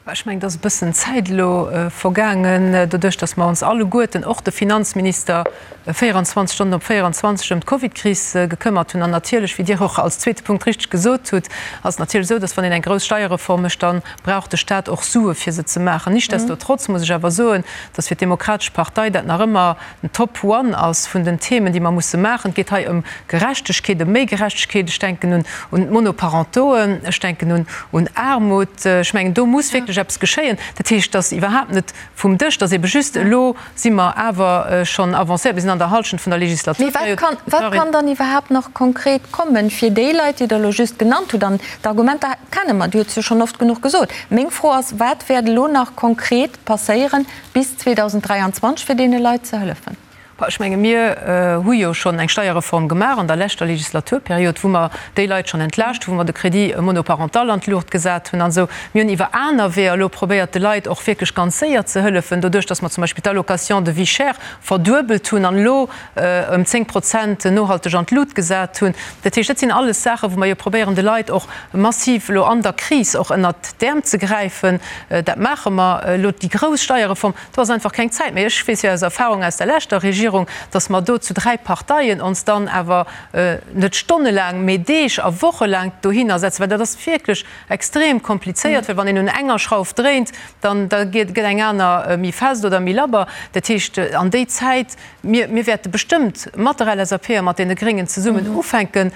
B: Ech mengen, et ass e bëssen Zäit elo vergaangen, doduerch datt mer ons alleguerten, och de Finanzminister, 24 Stonnen op 24 ëm d'Covidkris gekëmmert hunn. An natierlech, wéi Dir och als zweete Punkt richteg gesot hutt, ass et natierlech esou, datt wann een eng grouss Steierreform mécht, da brauch de Stat och Sue fir se ze maachen. Nichtsdestotrotz muss ech awer soen, datt fir d'Demokratesch Partei dat nach ëmmer den Top One ass vun den Themen, déi mer musse maachen. Et geet hei ëm Gerechtegkeet, ëm méi Gerechtegkeet. Ech denken un un d'Monoparentoen, ech denken un un Aarmut. Ech mengen, do muss wierklech eppes geschéien. Dat heescht, dass iwwerhaapt net vum Dësch, dass ebe just elo si mer awer schonn avancéiert, mir sinn an der Hallschent vun der
A: Mee
B: Legislaturperiod.
A: wat kann, wat kann dann iwwerhaapt nach konkret kommen, fir déi Leit, déi Der elo just genannt hutt? An d'Argumenter kenne mer, Dir hutt se jo schonn oft genuch gesot. Meng Fro ass, Wat wäert elo nach konkret passéieren bis 2023, fir deene Leit ze hëllefen?
B: Ech menge mir hu jo schonn eng Steierreform gemaach an der leschter Legislaturperiod, wou mer déi Leit schonn entlaascht hunn, wou mer de Crédit monoparental an d'Luucht gesat hunn an esou. Mir hunn iwwer aner Weeër elo probéiert, de Leit och wierklech ganz séier ze hëllefen, doduerch datt mer zum Beispill d'Allocation de vie chère verduebelt hunn an elo ëm 10 Prozent nohalteg an d'Lut gesat hunn. Dat heescht, dat sinn alles Saachen, wou mer jo probéieren, de Leit och massiv elo an der Kris och ënnert d'Äerm ze gräifen. Dat maache mer elo. Déi grouss Steierreform, do ass einfach keng Zäit méi. Ech weess jo aus Erfahrung aus der leschter Regierung. Regierung, dass mer do zu 3 Parteien ons dann awer net stonnelaang, mee Deeg a wochelaang dohinner setzen, well dat ass wierklech extrem komplizéiert, well wann een un enger Schrauf dréint, dann da gëtt eng aner méi fest oder méi labber. Dat heescht, an déi Zäit, mir, mir wäerte bestëmmt mat der LSAP a mat deene Gréngen zesummen ufänken,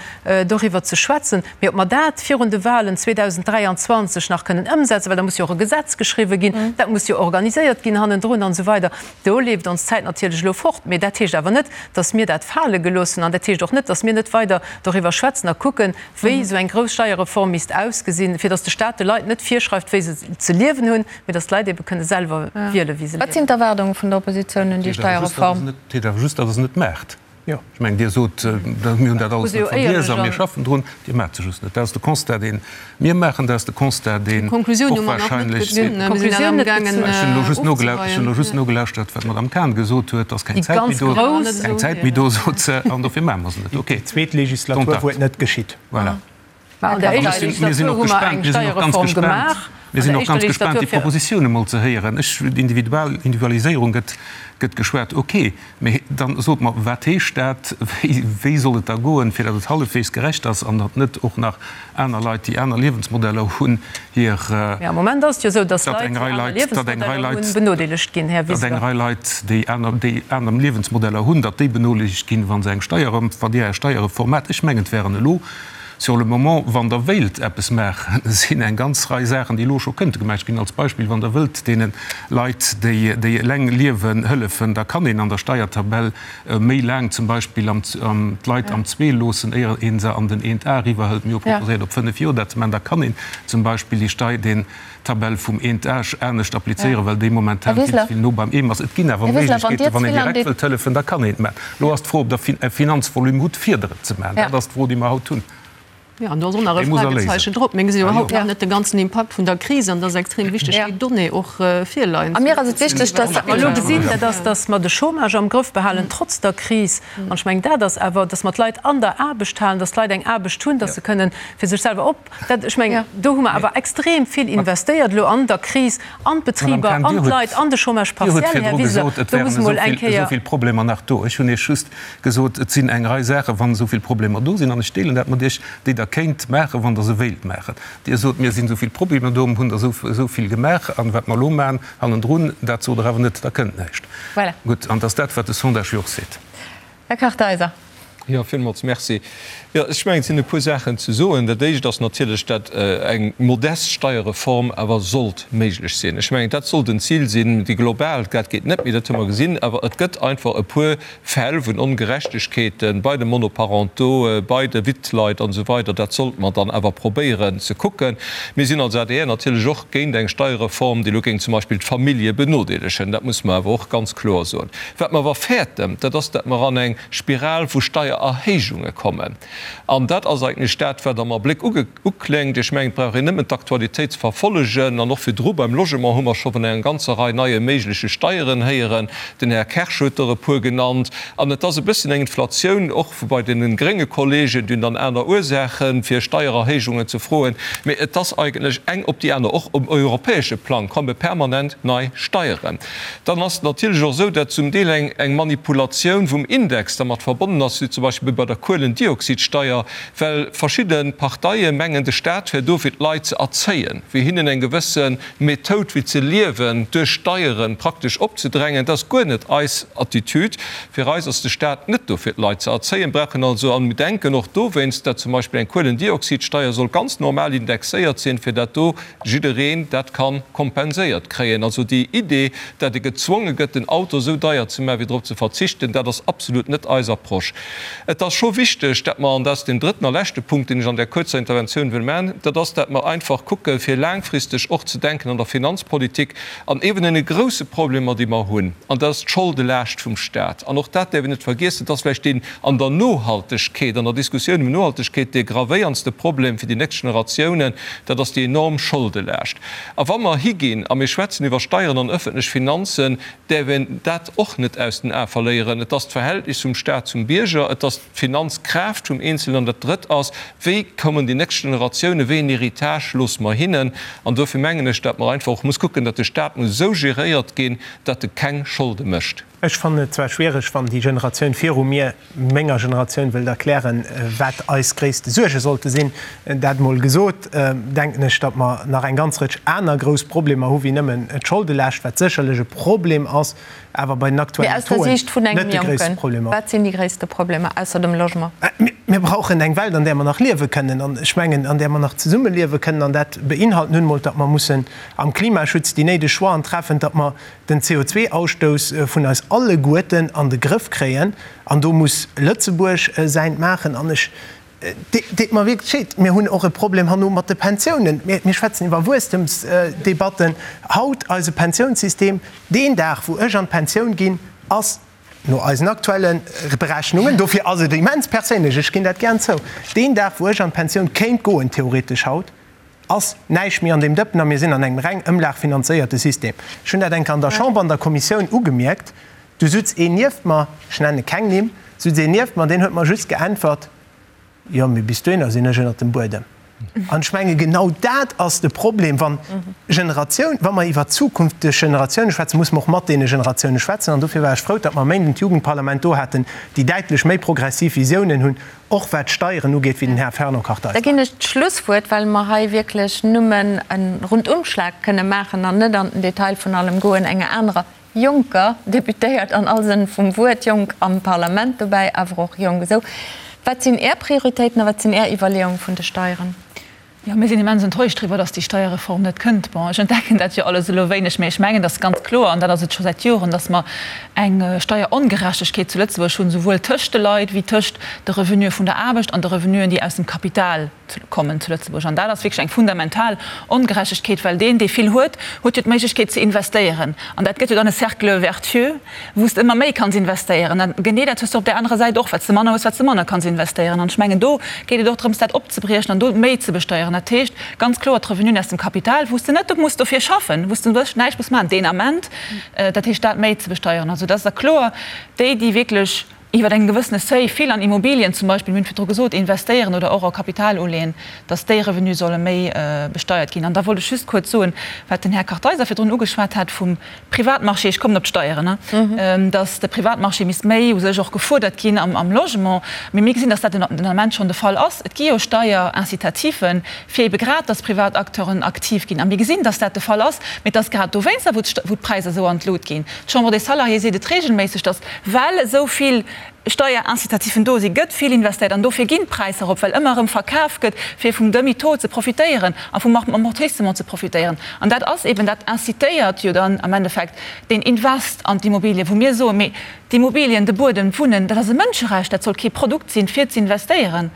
B: doriwwer ze schwätzen. Mee ob mer dat virun de Wahlen 2023 nach kënnen ëmsetzen, well da muss jo och e Gesetz geschriwwen ginn, dat muss jo organiséiert ginn hannendrun an esou weider, do leeft ons d'Zäit natierlech elo fort. Mee dat heescht awer net, datt mir dat fale gelooss hunn an dat heescht och net, datt mir net weider doriwwer schwätzen a kucken, wéi esou eng grouss Steierreform misst ausgesinn, fir datt de Staat de Leit net virschreift, wéi se ze liewen hunn, mee datt d'Leit ebe kënne selwer wielen, wéi se
A: Wat sinn
B: liewen.
A: d'Erwaardunge vun der Oppositioun un déi Steierreform?
G: Dat heescht awer just, datt Der se net maacht. Ech mengen, Dir sot, mir hunn dat alles net vergiess a mir schaffen drun. Dir maacht se just net. Dat ass de Constat, dee mir maachen. Dat ass de Constat, deen och wahrscheinlech. Ech hunn elo just nogelauschtert, wat d'Madame Cahen gesot huet, Et ass keng Zäit méi do. Keng Zäit méi do, sot se, an dofir maache mer se net. Okay.
F: Déi zweet Legislatur, wou et net geschitt.
G: Voilà.
B: Mä an der éischter Legislatur hu mer eng Steierreform gemaach.
G: Mir sinn och ganz gespaant, déi Propositioune mol ze héieren. Ech, Individual, Individualiséierung gëtt, gëtt geschwat, okay. Mee dann sot mer, wat heescht dat? Wéi, wéi soll et da goen, fir datt et hallefweegs gerecht ass an datt net och nach aner Leit, déi aner Liewensmodeller hunn, hir.
B: Mee am Moment ass et jo esou, datt Leit, déi aner Liewensmodeller hunn, benodeelegt ginn, Här
G: Wiseler. Datt eng Rei Leit, déi aner, déi aner Liewensmodeller hunn, datt déi benodeelegt ginn, wa se eng Steier, wann Dir Är Steierreform maacht. Ech mengen, et wären elo Sur le moment, wann Der wéilt eppes maachen, sinn eng ganz Rei Saachen, déi elo scho kënnte gemaach ginn. Als Beispill, wann Der wëllt deene Leit, déi, déi eleng liewen, hëllefen, da kann een an der Steiertabell méi laang zum Beispill am, d'Leit am Zwee loossen, éier ee se an den Eent A eriwwerhëlt. Mir hu proposéiert, op fënnef Joer dat ze maachen. Da kann een zum Beispill déi Stei, deen, Tabell vum Eent Age anescht applizéieren, well déi momentan vill ze vill no beim Eem ass. Et ginn awer Méiglechkeeten, wann een direkt wëllt hëllefen, da kann een et maachen. Elo ass d'Fro, ob Der e Finanzvolume hutt, fir der et ze maachen. Dat ass d'Fro, déi mer haut hunn.
B: Jo, an do ass och nach e Fragezeichen drop. Mir gesinn iwwerhaupt nach net de ganzen Impakt vun der Kris an et ass extrem wichteg, déi Donnée och virleien
A: ze hunn. A mir ass et wichteg, dass.
B: Wat mer elo gesinn, dat ass, dass mer de Chômage am Grëff behalen, trotz der Kris. An ech mengen, dat ass awer, dass mer d'Leit an der Aarbecht halen, dass d'Leit eng Aarbecht hunn, dass se kënnen fir sech selwer op. Dat, ech mengen, do hu mer awer extrem vill investéiert elo an der Kris, an d'Betriber, an d'Leit, an de Chômage
G: partiel, Här Wiseler. Do muss emol eng Kéier. Dir huet virdru gesot, et wären esou vill Problemer nach do. Ech hunn Iech just gesot, et sinn eng Rei Saachen, wann esou vill Problemer do sinn, an ech deelen dat mat Iech, déi Der kéint maachen, wann Der se wéilt maachen. Dir sot, mir sinn esou vill Problemer do, mir hunn der esou vill gemaach, an wat mer elo maachen hannendrun, dat sot Der awer net, da kënnt näischt. Gutt, an et ass dat, wat de Sondage jo och seet.
A: Här Kartheiser.
D: Jo, villmools Merci. Jo, ech mengen, et sinn e puer Saachen ze soen. Dat Éischt ass natierlech, dat eng modest Steierreform awer sollt méiglech sinn. Ech mengen, dat sollt en Zil sinn. Déi global, dat geet net méi, dat hu mer gesinn. Awer et gëtt einfach e puer Fäll vun Ongerechtegkeete bei de Monoparentaux, bei de Wittleit an esou weider. Dat sollte mer dann awer probéieren ze kucken. Mir sinn als adr natierlech och géint eng Steierreform, déi elo géing zum Beispill d'Famillje benodeelegen. Dat muss mer awer och ganz kloer soen. Wat mer awer fäerten, dat ass, dat mer an eng Spiral vu Steiererhéijunge kommen. An dat ass eigentlech dat, wat am Abléck ukléngt. Ech mengen, et brauch een nëmmen d'Aktualitéit ze verfollegen. An och virdru beim Logement hu mer scho vun enger ganzer Rei neie méigleche Steieren héieren. Den Här Kersch huet der e puer genannt. An et ass e bëssen eng Inflatioun och bei deene grénge Kollegen, déi hunn dann aner Ursaachen, fir Steiererhéijungen ze froen. Mee et ass eigentlech eng op déi aner. Och um europäesche Plang komme permanent nei Steieren. Dann ass et natierlech och esou, datt zum Deel eng eng Manipulatioun vum Index dermat verbonnen ass, wéi zum Beispill bei der Kuelendioxidsteier, well verschidde Parteie mengen, de Staat wär do fir d'Leit ze erzéien, fir hinnen eng gewësse Methoud wéi ze liewen duerch Steiere praktesch opzedrängen. Dat ass guer net eis Attitude. Fir eis ass de Staat net do fir d'Leit ze erzéien, brauchen also, an mir denken och dowéinst, datt zum Beispill eng Kuelendioxidsteier soll ganz normal indexéiert sinn, fir dat do jiddereen dat ka kompenséiert kréien. Also déi Idee, dat e gezwonge gëtt, den Auto esou deier ze maachen, fir drop ze verzichten, dat ass absolut net eis Approche. Et ass scho wichteg, dat mer, an dat ass deen drëtten a leschte Punkt, deen ech an där kuerzer Interventioun wëll maachen, dat ass, dat mer einfach kucken, fir laangfristeg och ze denken an der Finanzpolitik an eeben deene grouse Problemer, déi mer hunn, an dat ass d'Scholdelaascht vum Stat. An och dat däerf een net vergiessen, dat ass vläicht deen an der Nohaltegkeet, an der Diskussioun ëm Nohaltegkeet, dee gravéierndste Problem fir déi nächst Generatiounen, dat ass déi enorm Scholdelaascht. A wa mer higinn a mir schwätzen iwwer Steieren an öffentlech Finanzen, däerf een dat och net aus den Ae verléieren. Et ass d'Verhältnis vum Stat zum Bierger, et ass d'Finanzkraaft vum Eenzelnen an dat Drëtt ass, Wéi kommen déi nächst Generatiounen, wéi en Héritage loosse mer hinnen? An dofir mengen ech, datt mer einfach och muss kucken, datt de Stat muss esou geréiert ginn, datt e keng Scholde mécht.
F: Ech fannen et zwar schwiereg, wann déi Generatioun viru mir menger Generatioun wëllt erklären, wat eis gréisste Suerge sollte sinn. Dat emol gesot, denken ech, datt mer nach eng ganz Rëtsch aner grouss Problemer hu wéi nëmmen d'Scholdelescht, wat sécherlech e Problem ass, awer bei den aktuellen Tauxen net de gréisste Problem ass.
A: Wat sinn déi gréisste Problemer ausser dem Logement?
F: Mir brauchen eng Welt, an där mer nach liewe kënnen, an ech mengen, an där mer nach zesummeliewe kënnen. An dat beinhalt nun emol, datt mer mussen am Klimaschutz déi néideg Choixen treffen, datt mer den CO2-Ausstouss vun eis alleguerten an de Grëff kréien. An do muss Lëtzebuerg säint maachen. An ech deet mer wierklech leed, mir hunn och e Problem herno mat de Pensiounen. Mir schwätzen iwwer Wuesstemsdebatten haut. Eise Pensiounssystem, deen Dag wou ech an d'Pensioun ginn, ass no eisen aktuelle Berechnungen, dofir ass et immens perséinlech, ech ginn dat gären zou, deen Dag wou ech an d'Pensioun kéint goen, theoretesch haut, ass näischt méi an deem Dëppen a mir sinn an engem reng ëmlagfinanzéierte System. Ech hunn dat eng Kéier an der Chamber an der Kommissioun ugemierkt. Du sutz een nieft mer, ech nenne keng Nimm, sutz een nieft mer, deen huet mer just geäntwert, Jo, mee bis dohinner sinn ech ënnert dem Buedem. An ech menge genau dat ass de Problem, wann Generatioun, wa mer iwwer zukünfteg Generatioune schwätzen, musse mer och mat deene Generatioune schwätzen. An dofir war ech frou, datt mer e Méinden d'Jugendparlament do haten, déi däitlech méi progressiv Visiounen hunn, och wat d'Steieren ugeet, wéi den Här Fernand Kartheiser.
A: Da ginn ech d'Schlusswuert, well mer hei wierklech nëmmen e Rundumschlag kënne maachen an net an den Detail vun allem goen, enger anerer jonker Deputéiert an all Sënn vum Wuert, jonk am Parlament dobäi, awer och jonk esou. Wat sinn Är Prioritéiten a wat sinn Är Iwwerleeunge vun de Steieren?
E: Jo, mir sinn immens enttäuscht driwwer, dass déi Steierreform net kënnt. Bon, ech entdecken dat jo alles elo wéineg, mä ech mengen, dass ganz kloer, an dat ass et scho säit Joren, dass mer eng Steierongerechtegkeet zu Lëtzebuerg hunn, souwuel tëscht de Leit wéi tëscht de Revenue vun der Aarbecht an de Revenuen, déi aus dem Kapital kommen zu Lëtzebuerg. An dat ass wierklech eng fundamental Ongerechtegkeet, well deen, dee vill huet, huet jo d'Méiglechkeet ze investéieren. An dat gëtt jo dann e Cercle vertueux, wou s de ëmmer méi kanns investéieren. An genee dat hues de op där anerer Säit och, wat s de manner hues, wat s de manner kanns investéieren. An ech mengen, do geet et och drëms, dat opzebriechen an do méi ze besteieren. Dat heescht ganz kloer d'Revenuen aus dem Kapital, wou s de net muss dofir schaffen, wou s de wierklech näischt muss maachen deen Ament, dat heescht dat méi ze besteieren. Also dat ass da kloer, déi, déi wierklech iwwer engem gewëssene Seuil vill an Immobilien zum Beispill, mir hunn virdru gesot, investéieren oder och a Kapital uleeën, dass déi Revenue solle méi besteiert ginn. An da wollt ech just kuerz soen, wat den Här Kartheiser virdrun ugeschwat hat vum Privatmarché, ech kommen op d'Steieren, dass de Privatmarché misst méi u sech och gefuerdert ginn am Logement. Mee mir gesinn, dass dat den Ament schonn de Fall ass. Et gi jo Steierincitativen, fir ebe grad, dass privat Acteuren aktiv ginn. A mir gesinn, dass dat de Fall ass. Mee et ass grad dowéinster, wou d'Präisser esou an d'Lut ginn. D'Chambre des Salariés seet et regelméisseg, dass, well esou vill Steierincitativen do sinn, gëtt vill investéiert an dofir ginn d'Präisser erop, well ëmmer erëm verkaf gëtt, fir vum Demi-taux ze profitéieren a vum Amortissement ze profitéieren. An dat ass eben, dat incitéiert jo dann am Endeffekt deen Invest an d'Immobilien, wou mir soen, mee d'Immobilien, de Buedem, d'Wunnen, dat ass e Mënscherecht, dat soll kee Produkt sinn, fir z'investéieren.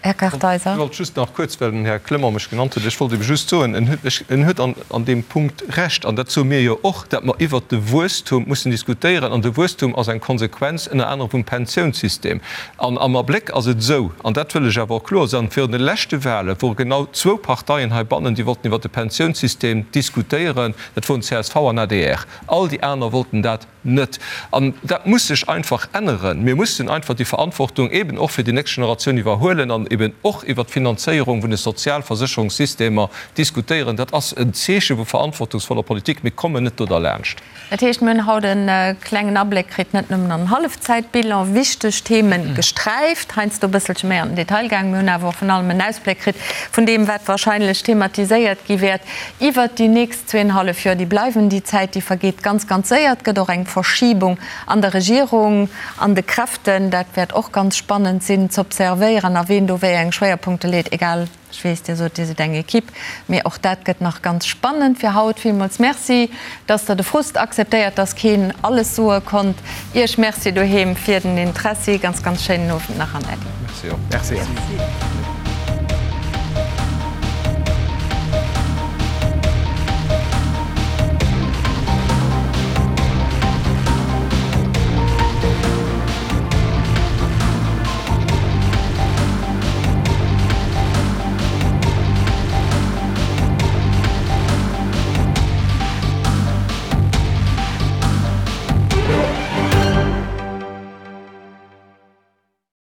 A: Här Kartheiser.
D: Ech wollt just nach kuerz, well den Här Clement mech genannt huet, ech wollt ebe just soen, en huet, en huet an, an deem Punkt Recht, an dat soe mir jo och, dat mer iwwert de Wuesstum mussen diskutéieren. An de Wuesstum ass eng Konsequenz ënner anerem vum Pensiounssystem. An am Abléck ass et esou, an dat wëll ech awer och kloer soen, virun de leschte Wahle wore genau zwou Parteien heibannen, déi wollten iwwert de Pensiounssystem diskutéieren, dat woren csv an adr. All déi aner wollten dat Net. An dat muss sech einfach änneren. Mir mussen einfach déi Verantwortung eben och fir déi nächst Generatioun iwwerhuelen an eben och iwwert d'Finanzéierung vun de Sozialversécherungssystemer diskutéieren. Dat ass en Zeeche vu verantwortungsvoller Politik. Mir kommen net do derlaanscht.
A: Dat heescht, mir hunn haut e klengen Abléck kritt, net nëmmen an den Hallefzäitbilan, wichteg Themen gesträift, heiansdo e bësselche méi an den Detail gaangen. Mir hunn awer och vrun allem en Ausbléck kritt vun deem, wat wahrscheinlech thematiséiert gi wäert iwwert déi nächst Zweenhallef Joer, déi bleiwen. Déi Zäit, déi vergeet ganz, ganz séier. Et gëtt och eng Verschibung an der Regierung, an de Kräften. Dat wäert och ganz spannend sinn z'observéieren a ween do wéi eng Schwéierpunkte leet. Egal, ech weess, Dir sot, Dir sidd eng Equipe, mee och dat gëtt nach ganz spannend. Fir haut villmools Merci, dass Der de Frust akzeptéiert, dass keen alles soe konnt. Iech Merci doheem fir den Interessi. Ganz, ganz schéinen Owend nach an Äddi.
D: Merci och. Merci.